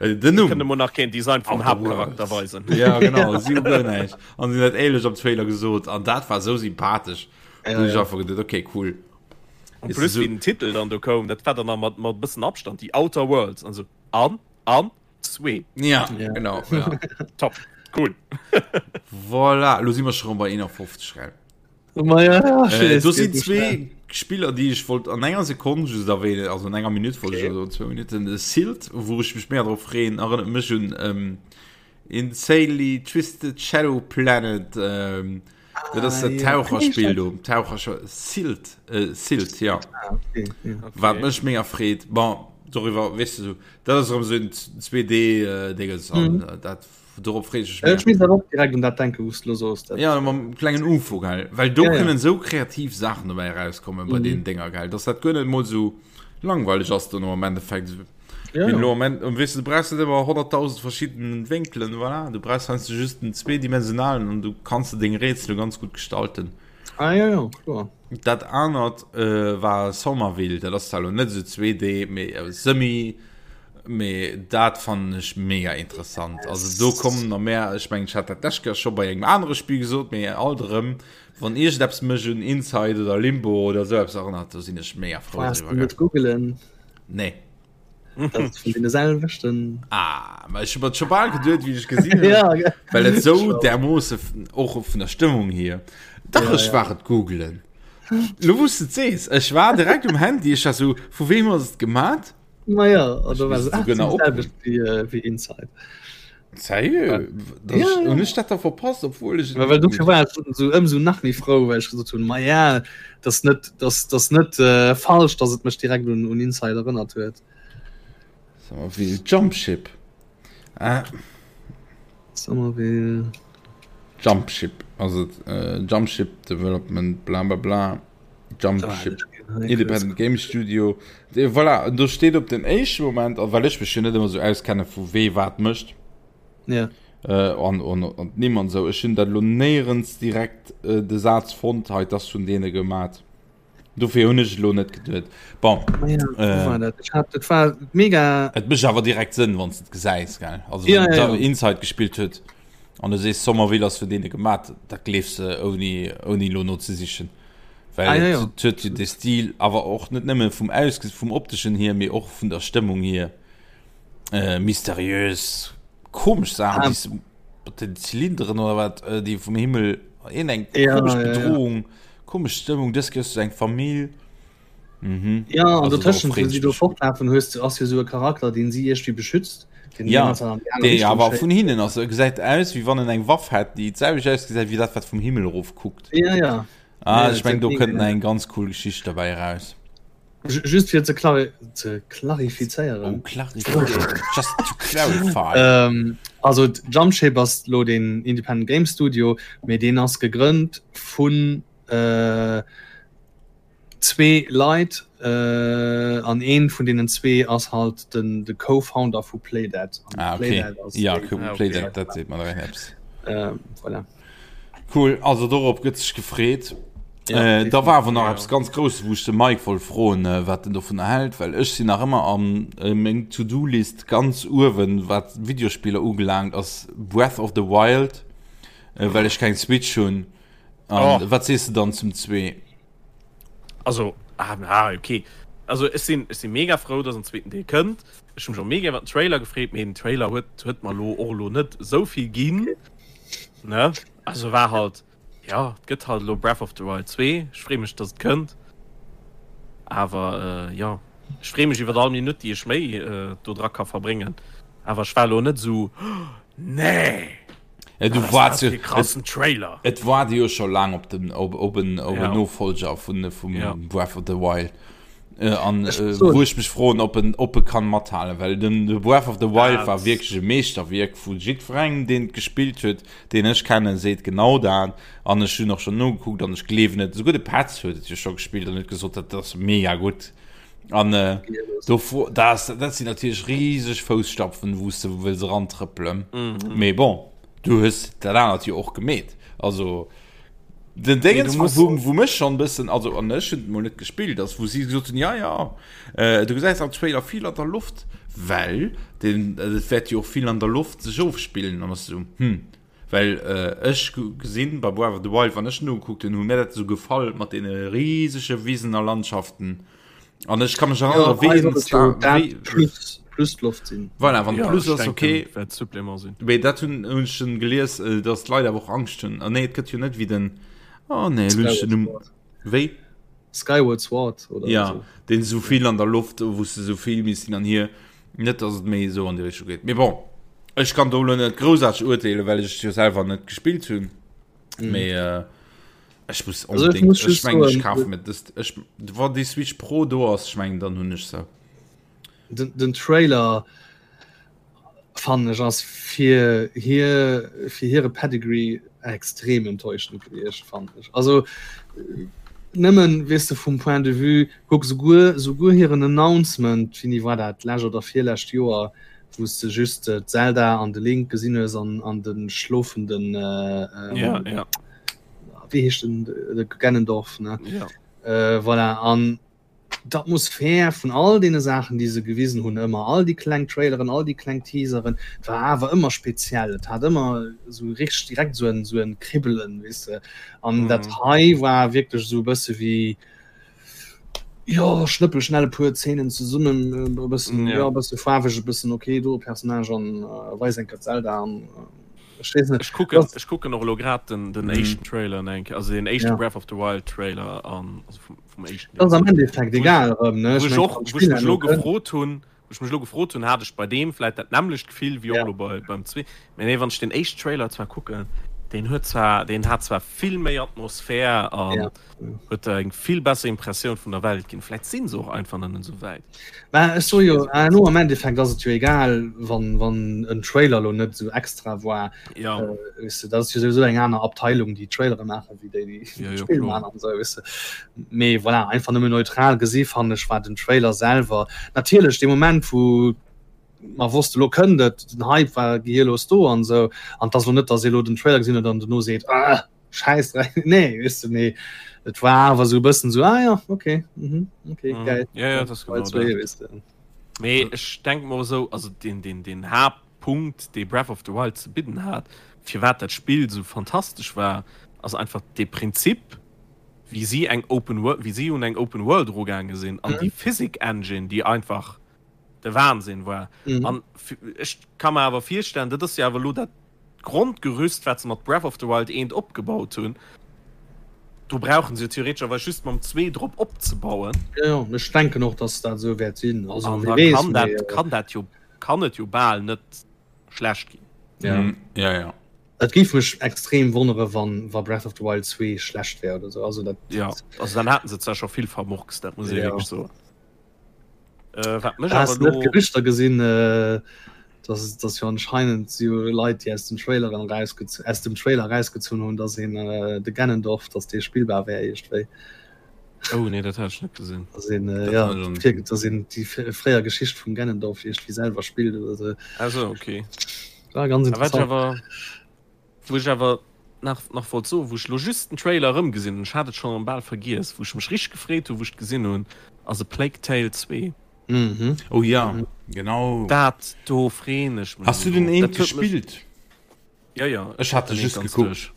äh, den Numm. Kënne mer nach keen Design vum Outer Haaptcharakter Worlds. weisen. Ja, genau, si hu guer näischt. An si hunn dat éierlech am Trailer gesot an dat war esou sympathesch. Ja, Da hunn ech ja. einfach geduet, okay, cool. En Ist plus so- wéi den Titel dann do koum, dat war dann nach mat mat bëssen Abstand, The Outer Worlds an esou an an zwee. Ja, Ja. genau. Ja. Top, cool. Voilà, lo si mer scho rëm bei 51, gell? Ma ja, ja, Äh, do sinn zwee Spiller, déi ech wollt an enger Sekonn just erwähnen, also an enger Minutt wollt okay. ech, also zwou Minutten. De Silt, wou ech mech méi drop freeën, erënnert mech un ähm, Insanely Twisted Shadow Planet. Ähm, ah, dat ass dat Taucherspill do. Taucher Silt, äh, Silt, ja. Ah, okay, ja. Okay. Wat mech mega freet. Bon, doriwwer, weess du, dat ass erëm sou en 2D-Dinges äh, an mhm. äh, dat Dorop freet ech mech. Ech misst awer och direkt un dat denken, wou s de lo soos. Ja, mam klengen Ufo, gell? Well do Ja, ja. kënnen esou kreativ Saachen dobäi erauskommen bei Mhm. deenen Dénger, gell? Dass dat guer net emol esou langweileg ass dono am Endeffekt. Ja, Wéi ja. elo am End, weess du, du brauchs net ëmmer 100.000 verschidden Wénkelen, voilà. Du brauchs heiansdo just den zweedimensionalen an du kanns de deng Rätsele ganz gutt gestalten. Ah, ja, ja, kloer. Dat anert äh, war Somerville, dat ass zwar elo net esou 2D, mee äh, semi, mee dat fannen ech mega interessant. Also do kommen nach mehr, ech mengen, ech hat dat d'lescht Kéier scho bei engem anere Spill gesot, mee alt erëm, wann iergendeppes mech un Inside oder Limbo oder esou eppes erënnert, do sinn ech mega frou Brauchst du driwwer, net googelen. Nee. Dat ass vun deene selwechten. Ah, ma ech hu mer scho bal geduet, wéi ech gesinn hunn. Ja, gell. Well et sou därmoosse och vun der Stëmmung hier. Dach, Ja, ech ja. war et googelen. Lo wou s de et sees, ech war direkt um Handy, ech war sou, vu weem ass et gemat? Ma ja, an da war misst se, ah, souguer nach dat opruffen. selwecht wéi, äh, wéi Inside. Sérieux? Ja, ja. Hunn ech dat da verpasst, obwuel ech et Well dofir gegoogelt war ech sou ëmsou nach méi frou, well ech gesot hunn, ma ja, dat ass net, dat ass net äh, falsch, datt et mech direkt un, un Inside erënnert huet. Somerville Jumpship. Ah. Somerville. Jumpship, also äh, Jumpship Development, bla bla bla. Jumpship. Independent Game Studio. De, voilà, do steet op den éischte Moment, a well ech mech jo net ëmmer sou auskenne vu wee wat mécht. Ja. Äh, an, an, an d'Nimm an sou. Ech hunn dat lo néierens direkt äh, de Saz fonnt, hei, dat ass vun deene gemat. Dofir hunn ech elo net geduet. Bon. Ja, äh, war dat? Ich hab, dat war mega. Et mécht awer direkt Sënn, wann s de et gesäis, gell? Also, Ja, wann ja, ja. ja. Inside gespillt huet an du sees Somerville ass vun deene gemat, dat gleefs de ouni, ouni lo nozesichen. Well Ah, ja, et ja. huet jo de Stil, awer och net nëmme vum Ausges vum opteschen hier, mee och vun der Stëmmung hier, äh, mysteriös, komesch Saachen, Ah. déi s mat den Zylinderen oder wat, äh, déi vum Himmel, een eng Ja, komesch ja, ja. Bedrohung, komesch Stëmmung, dës Kéier hues du eng Famill. Mhm. Ja, an Also dotëschent, darauf wou si do freet ech mech. fortlafen, hues du, ass jo sou e Charakter, deen si iergendwéi beschützt, deen déi Ja, ganze Zäit an déi aner dee Richtung awer schéisst. vun hinnen ass. E gesäit aus, wéi wann en eng Waff hätt, déi d'selwecht ausgesäit wéi dat, wat vum Himmel erof kuckt. Ja, ja. Ah, Ja, ech meng, do mega kënnt nach eng ganz cool Geschicht derbäi eraus. Just fir ze klari ze klarifizéieren. Oh, klarifizéieren. Just to clarify. Ähm, also Jumpship ass lo den Independent Game Studio, mee deen ass gegrënnt vun äh, zwee Leit äh, an een vun deenen zwee ass halt den de Co-Founder vu Playdead. Ah, okay. Playdead ass Ja, déi- Playdead, dat seet mer direkt eppes. Äh, voilà. Cool, also dorop gëtt sech gefreet. Ja, äh, da war awer nach eppes ganz Grousses, wou ech de Mike wollt froen, äh, wat en dovun hält, well ech sinn nach ëmmer an äh, meng To-Do-List ganz uewen, wat Videospiller ubelaangt, ass Breath of the Wild, äh, well ech keng Switch hunn. An oh. wat sees du dann zum zwee? Also ah, ah, okay. Also ech sinn ech sinn mega frou, dass en zweeten Deel kënnt. Ech hunn mech och mega iwwer den Trailer gefreet, mee den Trailer huet huet mer lo och lo net esou vill ginn. Ne? Also war halt ja, et gëtt halt elo Breath of the Wild 2. Ech free mech, dass et kënnt. Awer äh, ja, ech free mech iwwer all Minutt, déi ech méi äh, do dra ka verbréngen. Awer ech war lo net esou nee! Ja, du warst jo, krassen Trailer. Et war jo scho laang op den op, op en, op ja. Nofolger vun vum ja. Breath of the Wild. Äh, an äh, wou ech mech froen, ob en op e kann mathalen, well den de Breath of the Wild ja, war wierklech e Meeschterwierk vu jiddwerengem, deen et gespillt huet, deen ech kennen, seet genau dat. An ech hunn och schon nogekuckt an ech gleewen et. Souguer de Petz huet et jo scho gespillt an huet gesot, dat ass mega gutt. An äh, do das, dat sinn natierlech rieseg Fousstapfen, wou s de wëlls erantrëppelen. Mhm. Mee bon, du hues dat anert jo och gemeet. Also den Dingens, nee, wou, wou mech schon bëssen, also an ech hunn mol net gespillt, ass wou si gesot hunn, ja ja, äh, du gesäis am Trailer vill an der Loft, well den, äh, et wäert jo och vill an der Loft sech ofspillen an ass so, hm. Well ech gesinn bei Breath of the Wild, wann ech en ugekuckt hunn, hu mir dat esou gefall mat deene risege Wisen a Landschaften. An ech ka mech erënnere wéi en Star wéi plus plus d'Loft sinn. Voilà, wann ja, plus ass okay. Wäert Supplément sinn. Mee dat hunn hunn ech schon gelies, äh, dass d'Leit awer och Angscht hunn. Ah nee, et gëtt jo net wéi den Oh nee, hunn ech den Numm wéi? Skyward Sword oder ja, so. Den esou vill an der Loft, wou s de esou vill misst hin an hier. Net dass et méi esou an déi Richtung geet. Mee bon, ech kann do elo net groussaarteg urteelen, well ech et jo selwer net gespillt hunn. Mm. Mee äh, ech muss Also ech unbedingt, muss ech just mengen, ech soen, kafe mir dëst. Ech, wann déi Switch Pro do ass, ech mengen, dann hunn ech se. Den, den Trailer fannen ech ass fir hir fir hire Pedigree extrem enttäuschend gewiescht fannen ech. Also nëmmen weess de vum Point de vue kuck souguer souguer hiren Announcement, wéini war dat, d'lescht oder virlescht Joer, wou s de just d'Zelda an de Link gesinn hues an an de schlofenden ja, ja. wéi heescht den de Ganondorf ne ja. Voilà an D'Atmosphär vun all deene Saachen, déi se gewisen hunn, ëmmer all déi kleng Traileren, all déi kleng Teaseren, et war awer ëmmer speziell. Et hat ëmmer esou richteg direkt esou en, esou en Kribbelen, weess de. An dat hei war wierklech esou e bësse wéi, jo, schnëppel schnell e puer Zeenen zesummen, e bëssen, jo, e bësse faarweg, e bëssen ok, do e Personnage an weis eng Kéier d'Zelda an. Ech weess net. Ech kucken, ech kucken och elo grad den, den éischten Trailer eng Kéier, also den éischte Breath of the Wild Trailer an, also vum, vum éischten Deel. Ass am Endeffekt egal erëm, ne? Wou ech och, wou ech mech elo gefrot hunn, wou ech mech elo gefrot hunn, hat ech bei deem vläit dat nämmlecht Gefill wéi och elo bei, beim zwee. Mee nee, wann ech den éischten Trailer zwar kucken, deen huet zwar, deen hat zwar vill méi Atmosphär an huet der eng vill besser Impressioun vun der Welt ginn. Vläit sinn se och einfach nach net esou wäit. Mä ech soe jo, elo am Endeffekt ass et jo egal, wann, wann en Trailer elo net esou extra war. Ja. Äh, weess de, dat ass jo souwisou eng aner Abteilung, déi Trailere maachen, wéi déi, déi Ja, jo, d'Spill kloer. maachen an esou, weess de. Mee voilà, einfach nëmmen neutral gesi fannen ech war den Trailer selwer natierlech dee Moment, wou mer wosste lo kënnt et, den Hype war gehirlos do an esou. An et ass elo net, datt ee elo den Trailer gesinn huet an dono seet, ah, Scheiß nee weißt du, nee et war awer so bëssen so ah, ja okay mhm, okay mhm. geil ja, ja, das genau das. weißt du. Nee, ech denk mer so also den den den Hauptpunkt dee Breath of the Wild ze bidden hat firwat dat Spill so fantastesch war ass einfach de Prinzip wéi si eng Open World wéi si un eng Open World erugaange sinn an mhm. déi Physik Engine déi einfach de Wahnsinn war mhm. an ech ka mer awer virstellen dat ass jo awer lo dat D'Grondgerüst, wat se mat Breath of the Wild 1 opgebaut hunn, do brauchen se jo theoretescherweis just mam 2 drop opzebauen. Jo, jo, ech denken och, dass dat esou wäert sinn. Also, An wie da weess, kann dat, mee, kann dat jo, kann et jo bal net schlecht ginn. Ja. Mm, ja, ja. Et géif mech extrem wonnere, wann, wa Breath of the Wild 2 schlecht wär oder sou. Also dat, Ja, also dann haten se zwar scho vill vermurkst, dat muss ee Ja. wierklech soen. Äh, wat mech Hast awer net lo Gerüchter gesinn, äh, dass, dass jo anscheinend si Leit, déi aus den Traileren rausgez aus dem Trailer rausgezunn hunn, dass een äh, de Ganondorf, dass dee spillbar wär iergendwéi. Oh nee, dat hat ech net gesinn. Dass een äh, Dat ja, hat ech fir, dass een déi fréier Geschicht vum Ganondorf iergendwéi selwer spillt oder sou. Also okay. War ganz A wat ech interessant. awer, wou ech awer. nach, nach wollt soen, wou ech lo just den Trailer erëmgesinn hunn, ech hat et schonn erëm bal vergiess, wou ech mech richteg gefreet hunn, wou ech et gesinn hunn, ass A Plague Tale 2. Mhm. Oh ja, genau. Dat do freen ech mech. Hast du den eent gespillt? Ja, ja. Ech hat just gekuckt.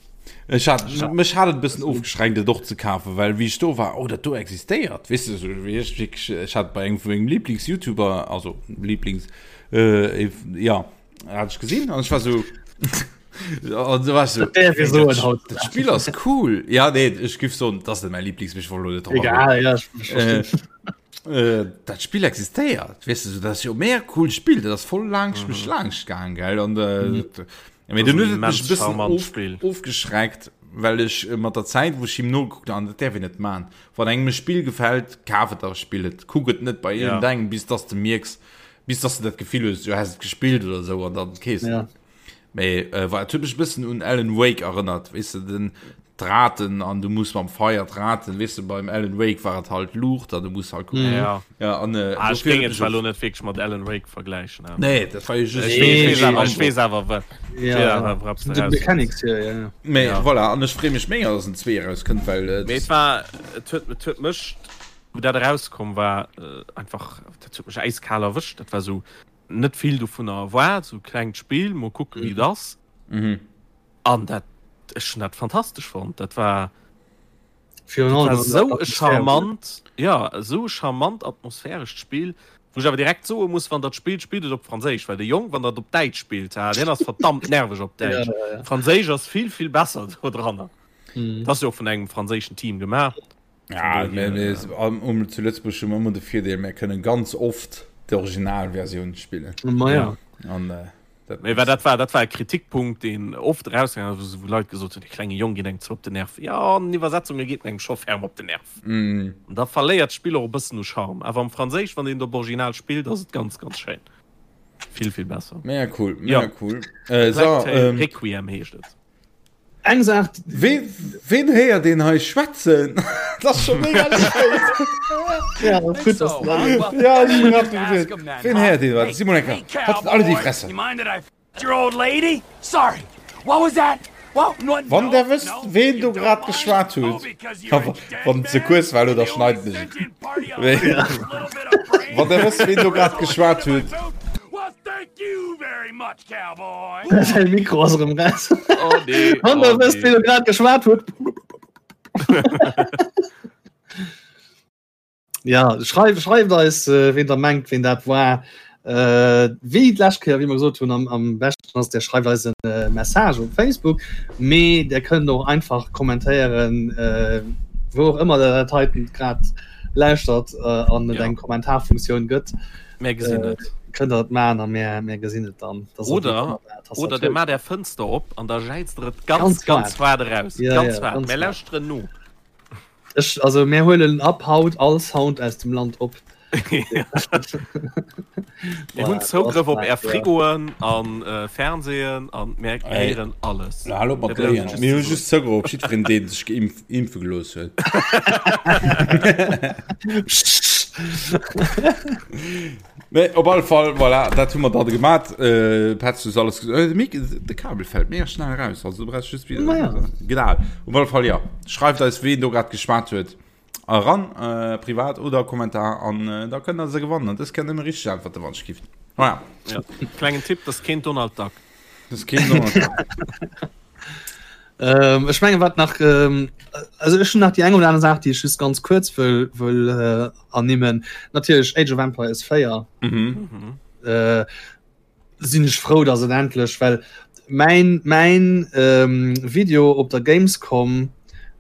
Ech hat, mech hat et e bëssen ofgeschreckt, et och ze kafen, well wéi ech do war, oh dat do existéiert, weess de, sou wéi ech wierklech, ech hat bei engem vu mengem Lieblings-YouTuber, also Lieblings, äh, ja, hat ech gesinn an ech war sou, an du war ech sou, Dat däerf ee soen haut. dat Spill ass cool. Ja, nee, ech giff soen, dat ass net mäi Lieblings, mee ech wollt elo net drop agoen. Egal, ja, ech verstinn. Äh, dat Spill existéiert, weess de, sou, dat ass jo mega cool Spill, dat ass voll laang mech laanscht gaang, gell, an äh, Mhm. dat, Mee dunn huet et mech e bëssen of, Spiel. ofgeschreckt, well ech äh, mat der Zäit, wou ech him nogekuckt an dat däerf een net man. Wann engem e Spill gefält, kaf et a spill et. Kuck et net bei Ja. iergendengem, bis dass de mierks, bis dass de dat Gefill hues, du häss et gespillt oder sou an dann kees Ja. Mee äh, war, et huet mech e bëssen un Alan Wake erënnert, weess de, den d'Raten an du muss mam Feier d'Raten, weess de, beim Alan Wake war et halt Luucht an du muss halt kucken. Mhm. Ja. Ja, an, äh, ah, ech dofir géing huet et mech zwar och- lo net wierklech mat Alan Wake vergläichen. awer- Nee, dat war jo just Ech Nee, weess, weess nee, awer, ech nee. weess awer, wa- Ja, ech weess ja. awer, woraps du De raus Mechanics, ja, ja, ja. Mee Ja. voilà, an ech freeë mech mega, dass en 2 erauskënnt, well äh, Mee et war, et huet, et huet mech, wou dat erauskomm war, äh, einfach, dat huet mech äiskal erwëscht. Dat war sou net vill dovunner erwaart, sou klengt Spill, mol kucke wéi et ass. Mhm. An dat, ech hunn dat fantastesch fonnt. Dat war, Virun dat allem war an der sou e Atmosphär. charmant, ja, esou e charmant atmosphärescht Spill, wou ech awer direkt soe muss, wann der d'spillt, spillt et op Franséisch, well de Jong, wann der et op Däitsch spillt, ha, deen ass verdammt nerveg op Ja, Däitsch. ja, ja. Franséisch ass vill, vill besser do dranner. Mhm. Dat ass jo och vun engem franséischen Team gemaach. Ja, Vun mir, dohier, mir, um, um, zu Lëtzebuerg hu mer ëmmer de Virdeel, mir kënnen ganz oft d'Originalversioun spillen. Ma ja. An, äh, dat Mee dat war, dat war e Kritikpunkt, deen oft erausgaangen ass, wou Leit gesot hunn, dee klenge Jong geet engem ze op den Nerv. Jo, an den Iwwersetzunge geet en engem scho ferm op den Nerv. Mm. An da verléiert d'Spill och e bëssen u Charme. Awer am Franséisch, wann een et op Original spillt, ass et ganz, ganz schéin. Vill, vill besser. Mega cool, mega Ja. cool. Äh, so, Plague Tale ähm, Requiem heescht et. Eng Saach, Ween, ween héiert een hei schwätzen? Dat ass scho mega spéit. ja, gutt, dass du dat Ja, ech hunn grad geduet, Ween héiert een wat? Simon Ecker, halt alle déi Fresse. Wann der wësst, ween do grad geschwat huet, wann et ze kuerz war, elo, da schneiden ech et. Wann der wësst, ween do grad geschwat huet. Säi Mikro ass erëm raus. Oh nee. Wann der wësst, ween do grad geschwat huet. Ja, schreift, schreift eis, äh, ween der mengt, ween dat war. Äh, wéi d'lescht Kéier, wéi mer gesot hunn, am, am beschten ass, der schreift eis en äh, Message op Facebook, mee der kënnt och einfach kommentéieren, äh, wou och ëmmer der dat heiten grad lauschtert äh, an et Ja. eng Kommentarfunktioun gëtt. Mär gesinn Äh, et. kënnt der et maachen a mär, mär gesinn et dann. Dass der Oder- déi ëmmer der Oder der Tastatur- maat är Fënster op an da jäizt der et ganz, Ganz ganz waart eraus. Ja, Ganz ja, waart. ganz Mär waart. lauschteren no. Ech, also mär huelen ab haut all Sound aus dem Land op. Mir hunn Zougrëff op är Frigoen an äh, Fernsehen an mär héieren alles. Na, hallo mat Léien. Mir hu just Zougrëff op jiddwereen, deen sech geimpf, impfe gelooss huet. Nee, op alle Fall, voilà, dat hu mer dann gemat. Äh, Petz, du alles äh, de Mik, de Kabel fällt mega schnell raus. Also du brauchst just wieder. Naja. Genau. Op alle Fall, ja. Schreift eis, ween do grad geschwat huet. Eran, äh, privat oder Kommentar an äh, da kënnt der se gewannen. An dës kënnt nëmme richtig antworten, wann ech gift. Voilà. Ja. Klengen Tipp, das keen Donald Duck. Das keen Donald Duck. Ähm, ech menge wat nach ähm, also ech hun nach die eng oder aner Saach, déi ech just ganz kurz wëll wëll äh, ernimmen. Natierlech Age of Empires 4 Mhm. Mhm. äh, sinn ech frou, dass et endlech well mäin mäin ähm, Video op der Gamescom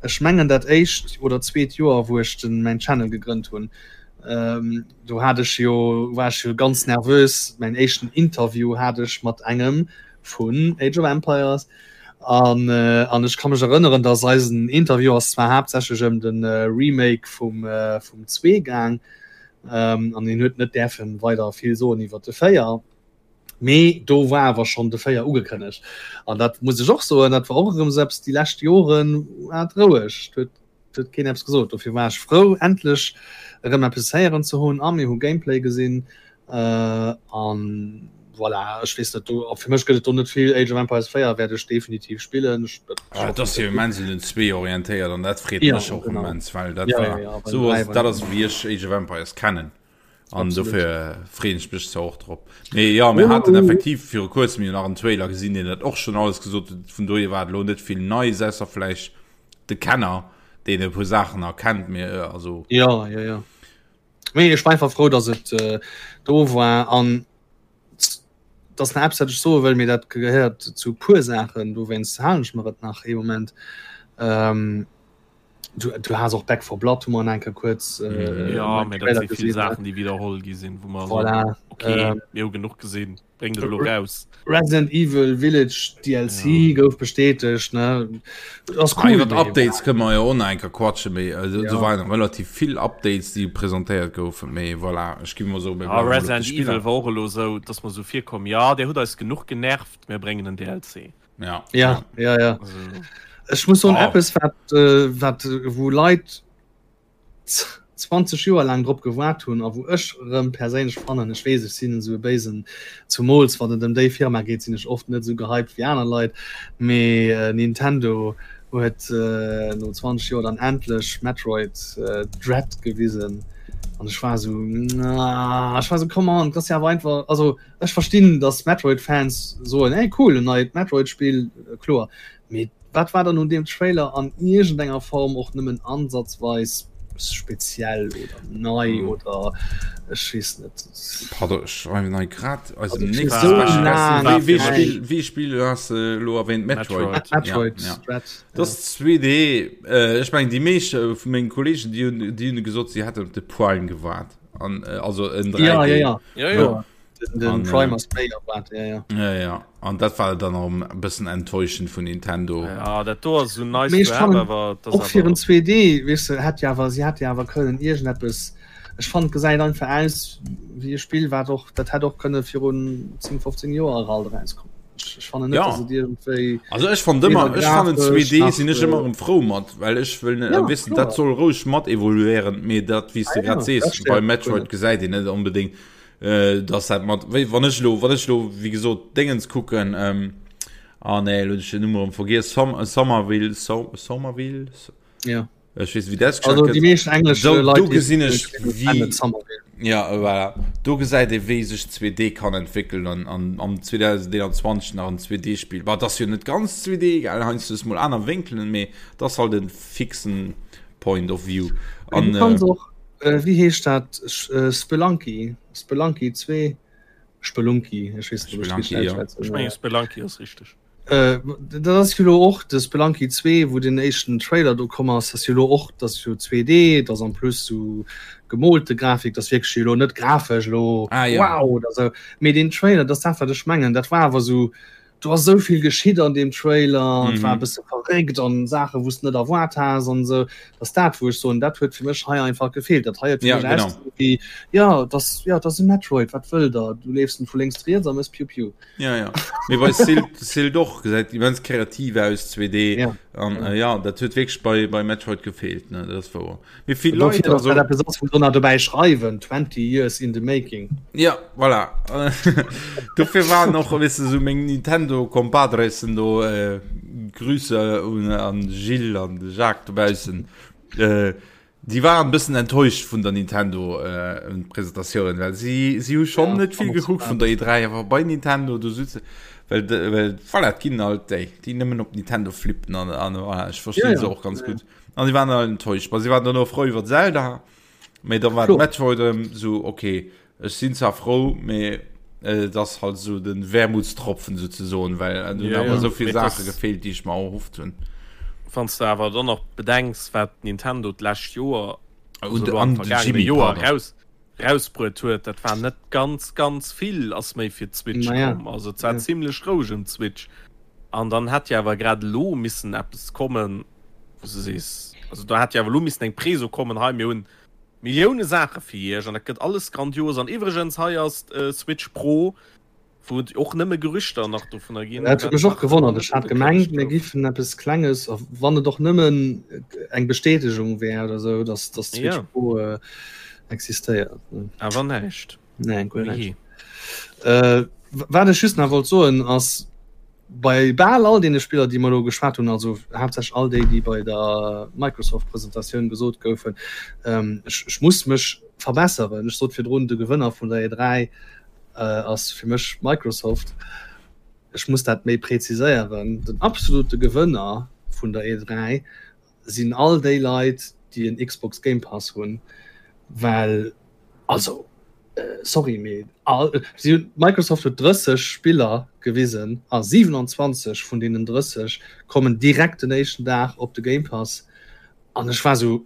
ech mengen dat éischt oder zweet Joer, wou ech den mäin Channel gegrënnt hunn. Ähm, do hat ech jo war ech jo ganz nervös. Mäin éischten Interview hat ech mat engem vun Age of Empires. An, äh, an ech ka mech erënneren, dass eisen Interview ass zwar haaptsächlech ëm den äh, Remake vum, äh, vum 2 gaang, ähm, an hien huet net däerfen weider vill soen iwwer de 4. Mee do war awer schonn de 4 ugekënnegt. An dat muss ech och soen, dat war och erëm esou eppes, déi lescht Joren war et roueg, et huet, et huet keen eppes gesot. Dofir war ech frou, endlech erëm eppes héieren ze hunn a mir hu Gameplay gesinn. Äh, an. Voilà, ech weess net, do, fir mech gëtt et do net vill. Age of Empires 4 wäert ech definitiv spillen. Ech, ah, dat ass jo immens un den 2 orientéiert an dat freet ja, mech och genau. immens, well dat ja, war ja, ja, so ass, dat ass wéi ech Age of Empires kennen. An dofir freeën ech mech zwar och drop. Mee ja, mir haten effektiv viru kuerzem jo nach en Trailer gesinn, deen dat och schonn alles gesot huet. Vun dohier war et elo net vill Neies, ausser vläicht de Kenner, deen e puer Saachen erkennt. Mee also. Ja, ja, ja. Mee ech war einfach frou, dass et äh, do war an dass nach eppes, wat ech soe wëll, mee dat gehéiert zu puer Saachen, dowéinst halen ech mer et nach ee Moment. Ähm, du, du has och Back 4 Blood hu mer an enker kuerz äh, mhm. ja, mä dat si vill Saachen, déi wiederholl gi sinn, wou mer voilà, so, okay, ähm, mir hu genuch gesinn, bréngt et elo raus. Resident Evil Village DLC ja. gouf bestätegt ne das cool, ah, iwwer Updates kënne mer jo och nach enker quatschen, mee also, ja. do waren relativ vill Updates, déi presentéiert goufen, mee voilà, ech gi mer so ah, Resident Evil war och elo sou, dass mer sou virkomm, ja, der hutt eis genuch genervt, mir bréngen en DLC. Ja. Ja, ja, ja. Also. Ech muss soen, oh. eppes wat, äh, wat wou Leit 20 Joer laang drop gewaart hunn a wou ech rëm perséinlech fannen, ech weess ech sinn esou e béisen, zumools wann et ëm déi Firma geet, sinn ech oft net esou gehypt wéi aner Leit, mee äh, Nintendo huet äh, no 20 Joer dann endlech Metroid äh, Dread gewisen an ech war esou, na, ech war esou, come on, dat ass jo awer einfach, also Ech verstinn dass Metroid Fans soen hey cool en neit Metroid Spill, kloer, mee wat war dann un deem Trailer an iergendenger Form och nëmmen ansatzweis speziell oder nei oder ech weess net. Pardon, ech schreiwen hei grad eisem Nick Special Guest. Wéi Spill, wéi Spill has de elo erwähnt? Metroid. Metroid Ja, ja. Dread. Dat ass 2D. Ech mengen déi meescht vu mengen Kollegen déi hunn, déi hunn gesot si hätten op de Prime gewaart. An, äh, also en 3D. Ja, ja, ja. Ja, ja. Den, den An, äh, Prime ass méi erwaart, ja, ja. Ja, ja. An dat war dann och e bëssen enttäuschend vun Nintendo. Ja, dat do ass so nice Mee ech to have, fannen awer dat och ass fir en awer 2D, weess de, hätt jo awer, si hätt jo awer kënnen iergendeppes, ech fannen et gesäit einfach aus wéi e Spill wat och, dat hätt och kënne virun 10, 15 Joer alt erauskommen. Ech, ech fannen net, Ja. dass et iergendwéi Also ech fand ëmmer, weder ech fannen grafesch 2D nach, sinn ech ëmmer äh, erëm frou mat, well ech wëll net ja, wissen, dat kloer. soll roueg mat evoluéieren, mee dat wéi s Ah de grad ja, dat sees, bei stéiert mech guer Metroid net. gesäit een net onbedéngt, äh, dass dat mat, wéi wann ech elo, wann ech elo wéi gesot Déngens kucken, ähm, ah nee, elo hunn ech den Numm erëm vergiess, Som Somerville, So Somerville? Ja. Ech weess, wéi dat Also ausgeschwat déi gëtt. meescht englesch Do, Leit do déi gesinn ech kennen wéi, Somerville. ja voilà, do gesäit ee wéi sech 2D kann entwéckelen an, an am 2021 nach en 2D-Spill. Bah, et ass jo net ganz 2D, gell, heiansdo hues mol aner Wénkelen, mee et ass halt e fixen Point of View. Mee An du kanns äh, och, äh, wéi heescht dat, äh, Spelunky, Spelunky 2, Spelunky, ech weess net, ob ech Spelunky, richteg ja. ausschwätzen. Ech mengen Spelunky ass richteg. Äh, dat ass jo lo och de Spelunky 2, wou den éischten Trailer do komm ass, ass jo lo och, dat ass jo 2D, dat ass en plus sou gemoolte Grafik, dat ass wierklech jo lo net grafesch lo Ah, ja. wow oder sou, mee deen Trailer, dat ass dat wat ech mengen, dat war awer sou, do ass sou vill geschitt an deem Trailer, et war e Mhm. bësse verréckt an Saache wou s de net erwaart has an sou, dat ass dat wou ech soen, dat huet fir mech hei einfach gefeelt, dat hei huet fir Ja, mech genau. ausgesinn wéi, jo, dat ass, jo, dat ass e Metroid, wat wëllt der, du leefs en vu lénks riets a mëss piu piu. Ja, ja. Mee bei Silt, Silt och gesäit immens kreativ aus 2D Ja. an Ja. äh, ja dat huet wierklech bei, bei Metroid gefeelt ne dat ass wouer. Mee vill Dofir, Leit dass also dat eppes ass, wou se nach dobäi schreiwen, 20 years in the making. Ja voilà dofir waren och weess de sou meng Nintendo Compadresen do äh, Grüße un an Gilles an de Jacques dobaussen äh, Déi waren e bëssen enttäuscht vun der Nintendo Presentatioun, well si si hu schonn net vill gekuckt vun der E3, awer bei Nintendo do sutze well well voilà, et ginn alt déi, déi nëmmen op Nintendo flippen an an voilà, ech verstinn se och ganz gutt. An si waren all enttäuscht. Bah si waren dann och frou iwwer Zelda, mee da war Metroid erëm sou okay, Ech sinn zwar frou, mee et ass halt esou den Wermutstropfen souzesoen, well et hunn awer esou vill Saache gefeelt, déi ech mer erhofft hunn. Wann s de awer dann och bedenks, wat Nintendo d'lescht Joer, also elo An am de vergaangene Jimmy, Joer, pardon. eraus, erausbruet huet, dat war net ganz, ganz vill ass méi fir d'Switch Naja, komm. Also et war ja. zimlech roueg ëm d'Switch. An dann hätt jo awer grad elo missen eppes kommen, wou s de sees, also do hätt jo awer elo missen eng Preso kommen, hei mir hunn Millioune Saache fir iech an dat gëtt alles grandios. An iwwregens, hei ass d'Switch Pro, wou et och nëmme Gerüchter nach dovunner ginn. Dat huet mech och gewonnert. Ech hat gemengt, mir gouf. giffen eppes Klenges, a wann et och nëmmen eng Bestätegung wär oder esou, dass dass d'Switch Ja. Pro existéiert. Awer näischt. Nee, guer Wéi näischt. Äh. Wat ech just nach wollt soen ass, bei bal all deene Spiller, déi mer elo geschwat hunn, also haaptsächlech all déi, déi bei der Microsoft-Presentatioun gesot goufen, ech, ech muss mech verbesseren, ech sot virdrun, de Gewënner vun der E3 ass fir mech Microsoft. Ech muss dat méi präziséieren, Den absolute Gewënner vun der E3 sinn all déi Leit, déi en Xbox Game Pass hunn, well, also sorry, mee all, si hunn, Microsoft huet 30 Spiller gewisen a 27 vun deenen 30 kommen direkt den éischten Dag op de Game Pass. An ech war sou,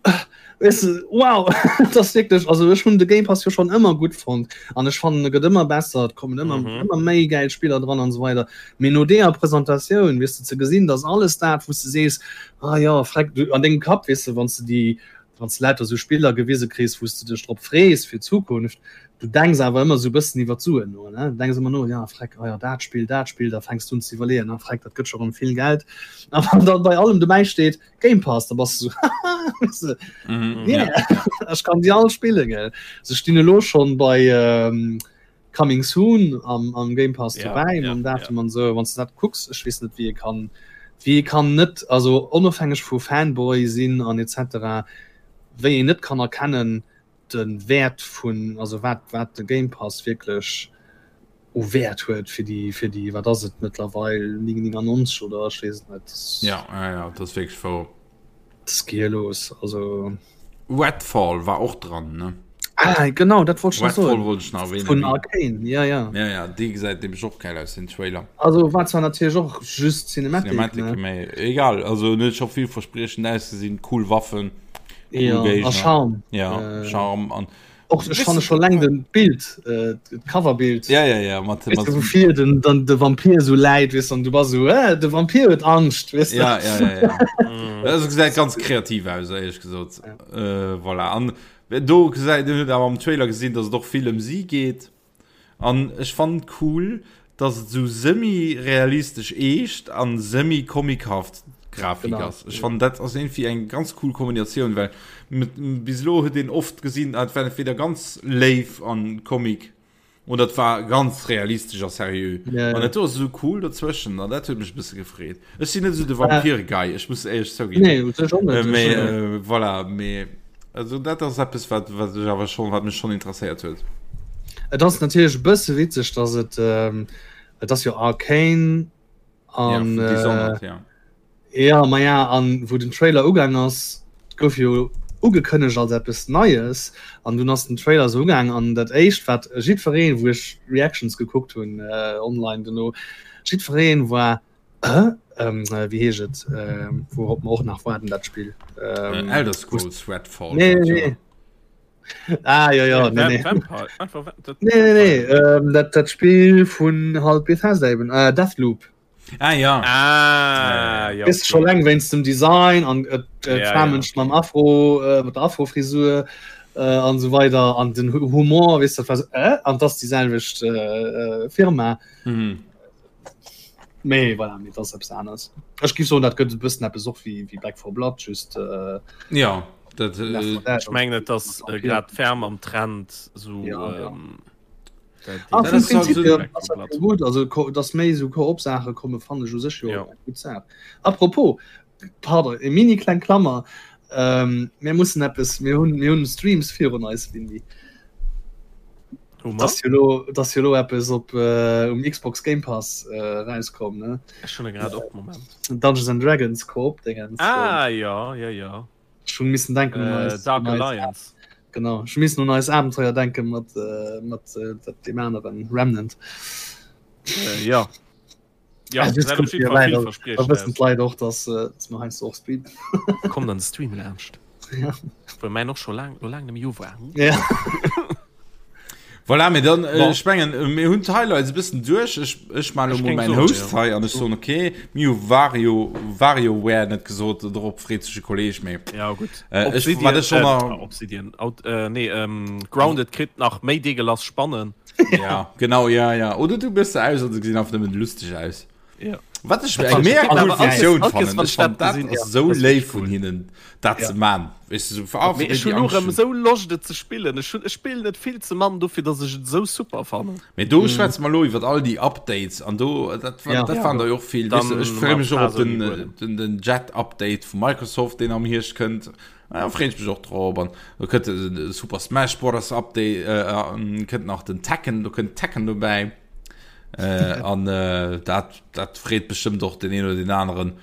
weess de, wow, dat ass wierklech, also ech hunn de Game Pass jo schonn ëmmer gutt fonnt an ech fannen e gëtt ëmmer besser, et kommen ëmmer mm -hmm. ëmmer méi gäil Spiller dran an esou weider. Mee no deeër Presentatioun, weess de, ze gesinn, dass alles dat, wou s de sees, ah ja, freck, du an dengem Kapp, weess de, wann s de déi, wann s de lauter sou Spiller gewise kriss, wou s de dech drop frees fir d'Zukunft, du denks awer ëmmer sou e bëssen iwwer d'Suen no, ne? Du denks ëmmer no, ja, freck, ah ja, dat Spill, dat Spill, da fänks du un ze iwwerleeën, ah, freck, dat gëtt scho rëm vill Geld. A wann dann bei allem dobäi steet, Game Pass, da bass du sou, haha, weess de, Mhm, yeah, ja. ech kann déi all spillen, gell. Se stinn elo schonn bei ähm, Coming Soon am, am Game Pass Ja, dobäi, ja, mam ja. Datum an sou. Wann s du dat kucks, ech weess net, wéi ee kann, wéi ee kann net, also onofhängeg vu Fanboy sinn an etc., wéi een net kann erkennen, de Wäert vun, also wat, wat de Game Pass wierklech u Wäert huet fir déi, fir déi, wat ass et mëttlerweil, 9,99 oder ech weess et net. Ja, ja, ja, dat ass wierklech wouer. Dat ass gehirlos, also. Redfall war och dran, ne? Ah, genau, dat wollt ech nach soen. Redfall wollt ech nach erwähnen. Vun Arkane, ja, ja. Ja, ja, dee gesäit nämlech och geil aus, den Trailer. Also war zwar natierlech och just Cinematic, Cinematic, ne? mee egal, also en huet scho villverspriechend ausgesinn, cool Waffen. Cool ja, a Charme. Ja, äh, Charme an och ech fanne schon leng den Bild äh, Coverbild ja ja ja mat, weißt du, wofir den dann de Vampir so leid wis an du war so äh, de Vampir huet Angscht weißt du? ja, ja, ja, ja. Mm. also gesäit ganz kreativ aus ehrlich gesot ja. äh, voilà. an do gesäit huet awer am Trailer gesinn dass et och vill ëm si geet An ech fannen cool dass et sou semi-realistesch eescht an semi-comichaft Grafik ass. Ech fannen dat ass iergendwéi eng ganz cool Kombinatioun, well bis elo huet een oft gesinn, et war entweder ganz léif an Comic oder et war ganz realistesch a seriö. An dat do ass esou cool dozwëschen an dat huet mech e bësse gefreet. Ech sinn net esou de Vampir-Guy, ech muss éierlech zouginn. Nee, ech och net. Mee voilà, mee. Also dat ass eppes wat wat ech awer schon wat mech schon interesséiert huet. Et ass natierlech e bësse witzeg, dass et ähm, et ass jo Arcane an ja, Dishonored, äh, ja. ja ma ja an wou den Trailer ugaang ass, gouf jo ugekënnegt als eppes Neies an dunn ass den Trailer sou ugaang an dat éischt wat jiddwereen, wou ech Reactions gekuckt hunn äh, online dono, jiddwereen war Äh, ähm, äh, wéi heescht et äh, wourop mer och nach waarden dat Spill ähm, äh, Elder Scrolls Redfall nee, nee, nee. Ah, ja, ja, nee, nee. Vampire. Einfach, dat, nee, nee, nee. Ähm, dat, dat Spiel vun halt Bethesda eben äh, Deathloop Ah ja. Ah, ja. Ist schon lang wéinst dem Design an äh, äh, Ja, ja, ja. mam Afro äh, mat der Afrofrisur äh, an so weiter an den Humor weißt du, was, äh, an das die selwecht äh, äh, Firma Mhm. Mee voilà, mee dat ass eppes aneres. Ech géif soen, dat gëtt e bëssen eppes och wéi, wéi Back 4 Blood, just äh, Ja, dat äh, Left 4 Dead. Ech mengen et ass äh, grad ferm am Trend so Ja, ja. ähm, dat Ah, Dat vum ass halt Prinzip so- hier Back ass 4 dat Blood. jo gutt. Also ko- dass méi esou Koop-Saache komme fannen ech u sech jo Ja. eng gutt Saach. Apropos, pardon, eng mini kleng Klammer, ähm, mir mussen eppes, mir hunn, mir hunn Streams virun eis, Windy. Hu mer? Dass jo lo, dass jo lo eppes op äh, um Xbox Game Pass äh, rauskomm, ne? Ech hunn e grad op, Moment. Dungeons and Dragons Koop-Dingens. Ah, ja, ja, ja. Ech hunn missen denken un Äh, eis, Dark un eis Alliance. Genau, ech missen un eis Abenteuer denken mat, äh, mat äh, dat deem aneren Remnant. Äh, ja. Ja, Also, gesäit op kommt jeden hier Fall rein, da villverspriechend wëssen aus. d'Leit och, dass, äh, dass mer heiansdo och streamen. Kommt an de Stream laanscht. Ja. Wou mäin och scho laang, lo laang net méi u war. Ja. Voilà, mee dann, äh, Bon. ech mengen, äh, mir hunn d'Highlights e bëssen duerch. Ech, ech maachen Ech elo mol géing mäin soen, Host ja. hei an ech soen, okay, mir hu Wario, WarioWare net gesot, dorop freet sech e Kolleg, mee Ja, gutt. äh, ech, Obsidian, wat ech schon äh, nach, Obsidian, Out, äh, nee, ähm, Grounded kritt nach méi Deegelass Spannen. ja, genau, ja, ja. Oder du biss se aus an se gesinn einfach nëmmen lustig aus. Ja. Wat ech eng mega cool Funktioun fannen, ech fannen dat ass esou léif vun hinnen dat ze man. Weess de, sou fir all Mee ech hunn och erëm esou Loscht et ze spillen. Ech hunn, ech spillen et vill ze mann dofir datt ech et esou super fannen. Mee do schwätze mer elo iwwer all déi Updates an do dat war, dat waren der jo och vill. Weess de, ech freeë mech och op den, den, den Jet-Update vu Microsoft, deen am Hierscht kënnt. Da freeën ech mech och drop. An do kënnt de Super Smash Brothers Update, kënnt nach den Tekken, do kënnt Tekken dobäi. Äh, an äh, dat, dat freet bestëmmt och den een oder den aneren.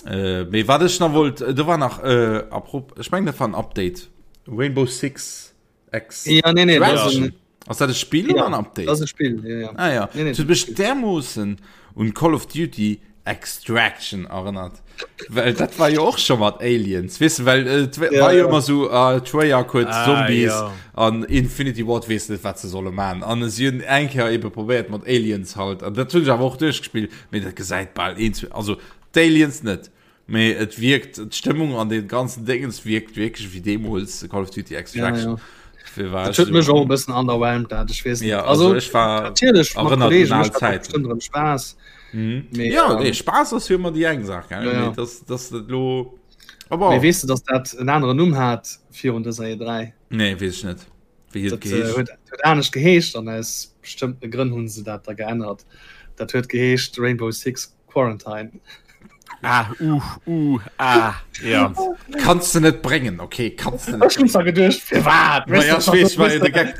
Äh, mee wat ech nach wollt, äh, do war nach äh, apropos, ech mengen dat war en Update. Rainbow Six X. Ja, nee, nee, das ist ein, Ass dat e Spiel oder ja, en Update? das ist ein Spiel, ja, ja. Ah ja, Nee, nee, das huet mech dermoossen un Call of Duty Extraction erënnert. Well dat war jo och scho mat Aliens, weess de, well et ja, war jo ëmmer sou uh, Treyarch huet ah, Zombies ja. an Infinity Ward weess net wat se solle man. An si hunn eng Kéier ebe probéiert mat Aliens halt an dat hunn ech awer och duerchgespillt, mee dat gesäit bal eens also d'Aliens net. Mee et wierkt d'Stëmmung an den ganzen Dingens wierkt wierklech wéi deemools Call of Duty Extraction. Ja, ja. Dat huet mech och e bëssen underwhelmed dat ech weess ja, also, also ech war natierlech mat Kollegen mécht dat bestimmt erëm Spaass. Mhm. Mee, ja, ähm, nee, Spaass ass jo ëmmer déi eng Saach gell? Ja, ja. Dass, dass dat lo aber Mee weess du, dass dat en aneren Numm hat virun dëser E3? Nee, weess ech net. Wéi huet et geheescht? Huet, huet anescht geheescht an aus bestëmmte Grënn hunn se dat da geännert. Dat huet geheescht Rainbow Six Quarantine. Ah, uh, uh, ah, ja. Kannst du net bréngen, okay, kannst du net. Ech hunn zwar geduecht, firwat? Ma ja, ech weess, war jo de Gag.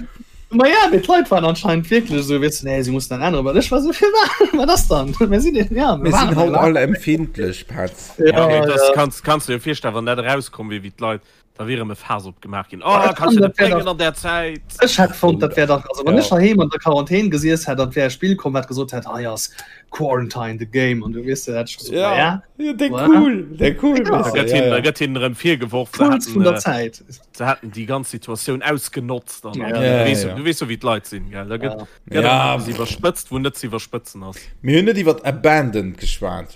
Ma ja, mee d'Leit waren anscheinend wierklech esou, weess du, nee, si mussen dat änneren. Well ech war esou, firwat? Wat ass dann? Mir sinn, ja, mir sinn haut all empfindlech, Petz. Ja, okay, das kannst, kannst du dir virstellen, wann dat erauskomm wier, wéi d'Leit Da wier erëm e Faass opgemaach ginn. Oh, kannst du net bréngen an där Zäit. Ech hätt fonnt, dat wär dach, also wann ech heiheem an der Quarantän gesiess hätt an et wär e Spill komm, wat gesot hätt, hei ass Quarantine the Game an du weess de, hätt ech gesot, ma ja, ja, dee cool, dee cool, Da gëtt hinnen, da gëtt hinnen erëm virgeworf, se Puls vun der hätten, Zäit. se hätten déi ganz Situatioun ausgenotzt an Ja. du Ja, weess, ja. du weess jo wéi d'Leit sinn, gell, da gëtt, gëtt Ja. erëm eppes iwwerspëtzt, wou net ze iwwerspëtzen ass. Mir hunn net iwwer Abandoned geschwat.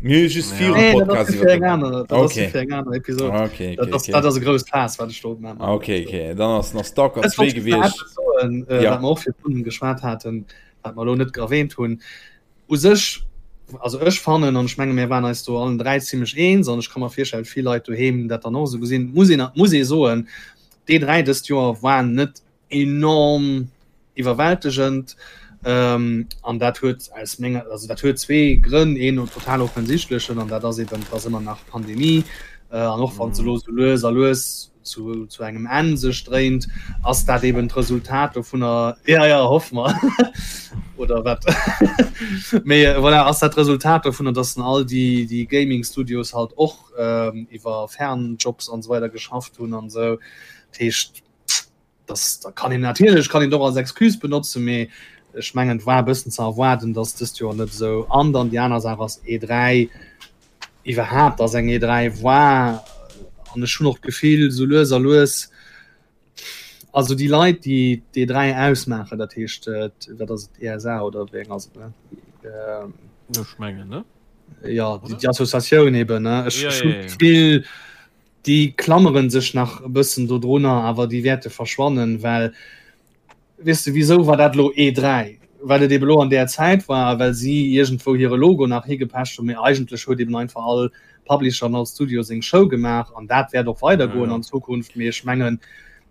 Mir hu just Ja. virum Nee, dat ass Podcast fir eng iwwer aner, dat ass Okay. fir eng aner Episode. Okay, Dat okay, ass, okay. dat ass e grousst Faass, wat ech do opmachen. Okay, okay. Dann ass nach Stalker Ech 2 wollt just nach gewiescht. eppes soen, äh, Ja. wat mer och virdrun geschwat haten, wat mer elo net erwähnt hunn. U sech, also ech fannen, an ech menge mir waren eis do allen 3 zimmlech eens, an ech ka mer virstellen, vill Leit doheem dat dann och esou gesinn, muss een, muss ee soen, d'E3 dëst Joer war net enorm iwwerwältegend an dat huet aus menger, also dat huet zwee Grënn, een total offensichtlechen an dat ass eben, et ass ëmmer nach Pandemie an och wann se elo sou lues a lues zu, zu engem Enn sech dréint, ass dat eben d'Resultat dovunner, ja, ja, hoffe mer, oder wat, mee voilà, ass dat d'Resultat dovunner, dass all déi, déi Gaming Studios halt och iwwer Fernjobs an esou weider geschafft hunn an esou. Dat heescht, das da kann een natierlech kann een och als Excuse benotzen, mee ech mengen et war e bëssen ze erwaarden, datt dëst Joer net esou an dann déi aner Saach ass E3 iwwerhaapt ass eng E3 war an ech hunn och d'Gefill sou lues a lues also déi Leit déi d'E3 ausmaachen, dat heescht wat ass et ESA oder wéi eng ass et ne? Ech mengen ne? Jo déi Associatioun eben ne ech hunn d'Gefill Déi klammere sech nach e bëssen dodrunner, awer déi wäerte verschwannen, well, weess de, wisou war dat elo E3? Well et ebe lo an där Zäit war a well si iergendwou hire Logo nach higepecht hunn. Mee eigentlech huet eben einfach all Publisher an all Studio seng Show gemaach an dat wäert och weidergoen an Zukunft. Mee ech mengen,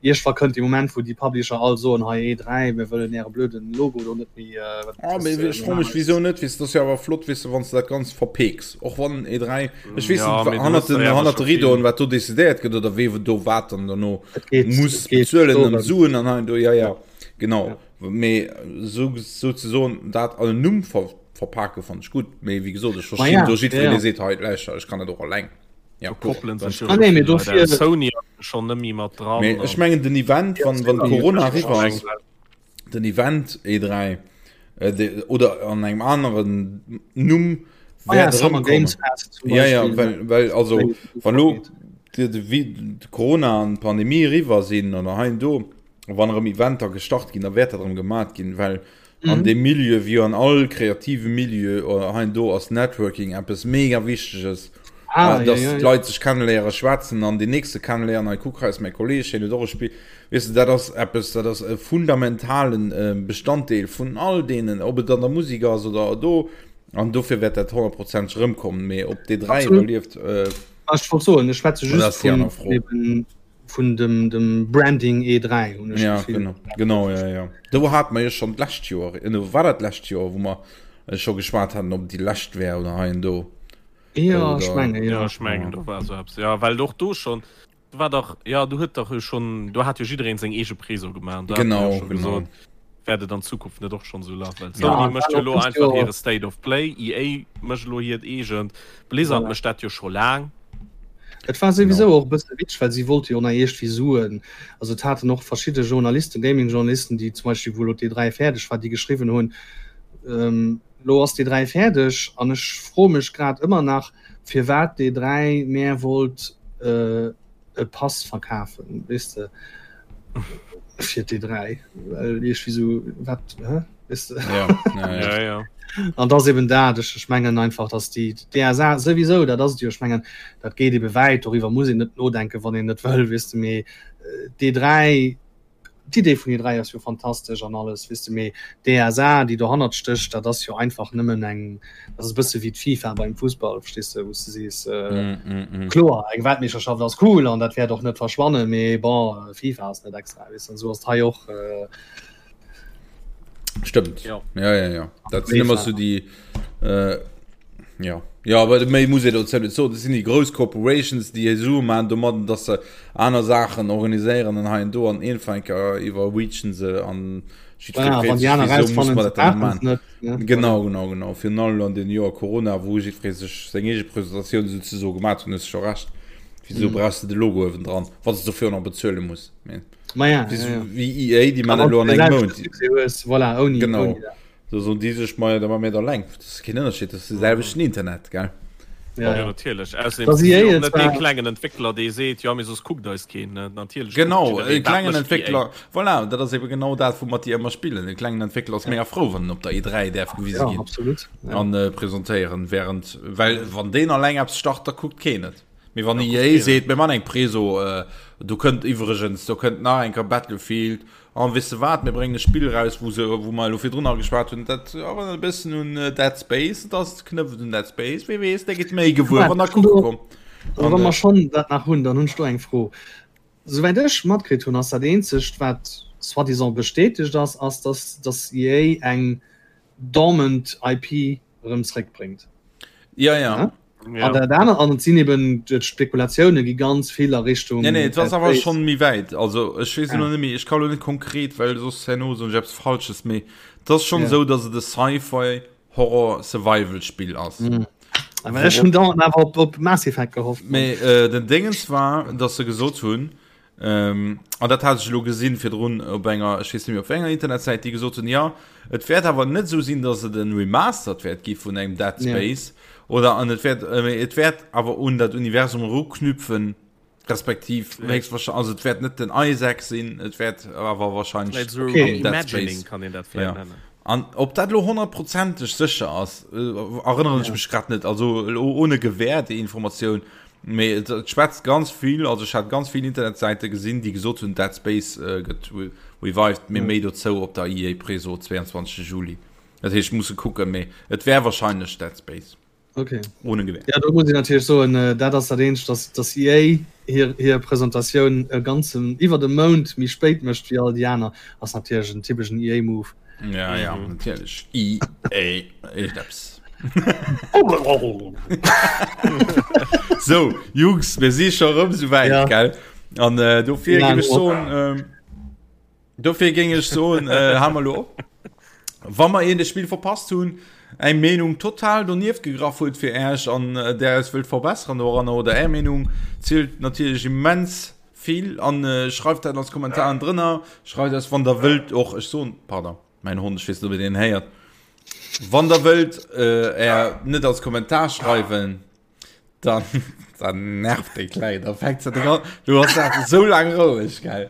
iergendwa kënnt dee Moment, wou déi Publisher all soen, hei E3, mir wëllen äre blöden Logo do net méi. Ah, mee ech froe mech, wisou net? Weess de, dat ass jo awer flott, weess de, wann s de dat Ganzt verpeeks. Och wann E3, ech weess Ja, net, mee du hannert hues den, der ja hannert de schon vill. Rideauen, wat do decidéiert gëtt oder wee do wat dann dono Et geet, muss et geet bezuelen an dorëm. Suen an hei an do, ja, ja, genau. Ja. Mee sou, souzesoen dat an en Numm ver, verpake fannt ech gutt. Mee wéi gesot, ech Ma verstinn ja, do ja, jiddwereen, ja. dee seet, hei, lauschter, ech kann dat och alleng. Ja, Do gutt, koppelen dann. sech jo Ah scho nee, mee vill Leit dofir. aus. Sony ass schonn net méi mat dran Mee ech an mengen den Event, Ja, wann, wann Sony Corona huet eriwwer ech ass, mengen, den Event E3 äh, oder an engem aneren Numm ah, ja, Summer Games Fest zum ja, ja, well, well also wann lo de, de, de Corona an Pandemie riwer sinn oder hein do wann erëm Eventer gestart ginn, da wäert dat erëm gemat ginn, well mhm. an dem Milieu wie an all kreative Milieu oder hein do ass Networking eppes mega wichteges. Ah, äh, dass ja, ja, ja. Leit sech kennenléiere schwätzen an den nächste kennenléieren hei kuck hei ass mäi Kolleg hien huet och e Spill weess de dat ass eppes dat ass e fundamentalen äh, Bestanddeel vun all deenen ob et an der Musik ass oder do. An dofir wäert dat honnertprozenteg erëmkommen. Mee ob d'E3 iwwerlieft, äh, Ech wollt soen, ech schwätze dat just ass déi vun aner Fro. eben vun dem, dem Branding E3 hunn ech Ja, d'Gefill. genau, genau, ja, ja. Do hat mer jo schonn d'lescht Joer, äh, war dat d'lescht Joer, wou mer äh, scho geschwat haten, ob et déi lescht wär oder hei an do. Ja, ech Oder, menge, Ja, ja. ech mengen, ja. do war esou eppes. Ja, well och do schonn, do war dach, ja, do huet dach jo schonn, do hat jo jiddereen seng eege Preso gemaach an do hat mer jo Genau, scho genau. gesot, wäert et an Zukunft net och schonn esou lafen, well Ja, Sony an mécht war jo och elo dëst einfach Joer, hire State of Play, EA mécht elo hiert eegent, Blizzard voilà. mécht dat jo scho laang. Et war Genau. souwisou och e bësse witzeg, well si wollte jo nach iergendwéi Suen, also et haten och verschidde Journalisten, Gaming-Journalisten, déi zum Beispill, wou elo d'E3 fäerdeg war, déi geschriwwen hunn, ähm, Lo ass d'E3 fäerdeg an ech froe mech grad ëmmer nach, firwat d'E3 mär wollt e Pass verkafen, weess de, fir d'E3, well iergendwéi sou, wat, hä, weess de? Ja, ja, ja. Ja, ja. An et ass eben dat, ech, ech mengen einfach, datt déi d'ESA souwisou, dat ass et jo, ech mengen, dat geet ebe wäit, doriwwer muss een net nodenken, wann een net wëll, weess de, mee d'E3, D'Idee vun E3 ass jo fantastesch an alles, weess de, mee d'ESA, déi dohannert stécht, dat ass jo einfach nëmmen eng, dat ass e bësse wéi d'FIFA beim Fussball, verstees de, wou s de sees, kloer, eng Weltmeeschterschaft ass cool an dat wäert och net verschwannen, mee bon, FIFA ass net extra, weess de, an esou ass et hei och. Stëmmt. Ja. Ja, ja, ja. Dat sinn ëmmer so déi äh, ja. Ja, aber méi muss ee dozou net soen. Dat sinn déi grouss Corporations, déi hir Sue maachen domadden, dass se aner Saachen organiséieren an hei an do an iergendwann eng Kéier iwwerreachen se an jiddweree Voilà, freet wann déi sech, aner wieso muss rausfannen, mer se dat dann nach brauchen maachen? es net. Ne? Voilà. Genau, genau, genau. Virun allem an den Joer Corona, wou jiddweree sech seng eege Presentatioun souzesoe gemaat hunn, hues de scho Recht. Wieso Mhm. brauchs de de Logo uewendran, wann s de dofir och nach bezuele muss? Mee. Ma ja, Wéi, ja, ja. wéi EA, déi A man wann elo du an engem selwechte Mount. Succès hues, voilà, ouni, Genau. ouni dat. Da soen déi sech, maja, da ma mir et alleng. Dat ass keen Ënnerscheed, dat ass de selwechten Internet, gell? Ja, Ja, ja. natierlech. Ausserdeem Dass si EA jo och et net dee zwar, klengen Entwéckler, dee seet, jo, mee soss kuckt eis keen. Ne? Natierlech kuckt Genau, e jiddereen, wat klengen mécht EA. Entwéckler, voilà, dat ass ebe genau dat, woumat déi ëmmer spillen. E klengen Entwéckler ass mega frou, wann en op der E3 däerf gewise ja, ginn absolut. Ja. an äh, presentéieren, während, well wann deen alleng eppes start, da kuckt keen et. Mee wann Da kuckt EA keen et. seet, mir man eng Preso, äh, do kënnt iwwregens, do kënnt nach eng Kéier Battlefield, an weess de wat, mir bréngen e Spill eraus, wou se, wou mer elo virdrun nach geschwat hunn, dat erënnert e bëssen un Dead Space, et ass knëpft un Dead Space, wie weess, der gitt méi gewuer, wann der Warte, kucke do, kommt. also An wa äh, mer schonn dat nach hunn, dann hunn ech do eng Fro. Souwäit ech matkritt hunn, ass dat eenzegt, wat soi-disant bestätegt ass, ass, dass, dass EA eng dormant IP erëm zréckbréngt. Ja, ja. Ja? Ja. An dat anert, an et sinn eben d'Spekulatioune gi ganz vill a Richtung Nee, nee, et ass Dead awer Space. schonn méi wäit. Also ech weess elo Ah. net méi, ech ka lo net konkret, well soss herno soen ech eppes Falsches, mee et ass schonn Ja. esou, datt et e Sci-Fi Horror Survival Spill ass. Mm. Awer ech hunn dauernd awer op, op Mass Effect gehofft. Mee äh, den Dingens war, datt se gesot hunn, Ähm, an dat hat ech elo gesinn virdrun op enger, ech weess net méi op wéi enger Internetsäit, déi gesot hunn, ja, et wäert awer net esou sinn, datt et en Remastered wäert gi vun engem Dead Space yeah. oder an et wäert, äh, et wäert awer un dat Universum eruknüpfen, respektiv höchstwahrscheinlich, also et wäert net den Isaac sinn, et wäert awer wahrscheinlich so okay. Dead Space kann een dat vielleicht ja. nennen. An ob dat lo honnertprozenteg sécher ass, äh, erënneren ech ja. mech grad net, also lo ohne Gewähr déi Informatioun. Mee et, et schwätzt ganz vill, also ech hat ganz vill Internetsäite gesinn, déi gesot hunn, Dead Space äh, gëtt revived, mee méi dozou op der EA Preso 22. Juli. Dat heescht, musse kucken, mee et wär wahrscheinlech Dead Space. Okay. Ohne Gewähr. Ja, do muss ich natierlech soen, äh, dat ass dat eenzegt, dass, dass EA hir, hir Presentatioun e ganzen iwwer de Mount méi spéit mécht wéi all déi aner, ass natierlech en typeschen EA-Move. Ja, ja, mhm. natierlech. EA, Eppes. So, Jungs, mir si scho rëm sou wäit, Ja. gell? An äh, dofir Ja, géif ech no. soen, ähm, dofir géing ech soen, äh, ha mer lo op. Wa mer een Spill verpasst hunn, eng Meenung total donieft gegraff huet fir Äech an äh, där eis wëllt verbessern doranner oder Är Meenung zielt natierlech immens vill an äh, schreift dat als Kommentaren drënner, schreift eis wann der wëllt och, ech soen, pardon. Mäin Hond, ech weess net, ob dir deen héiert. Wann der wëllt äh, är net als Kommentar schreiwen, dann, dann nervt dee Kleng. Da fänkt se dran. Du hast dat so lang roueg, gell?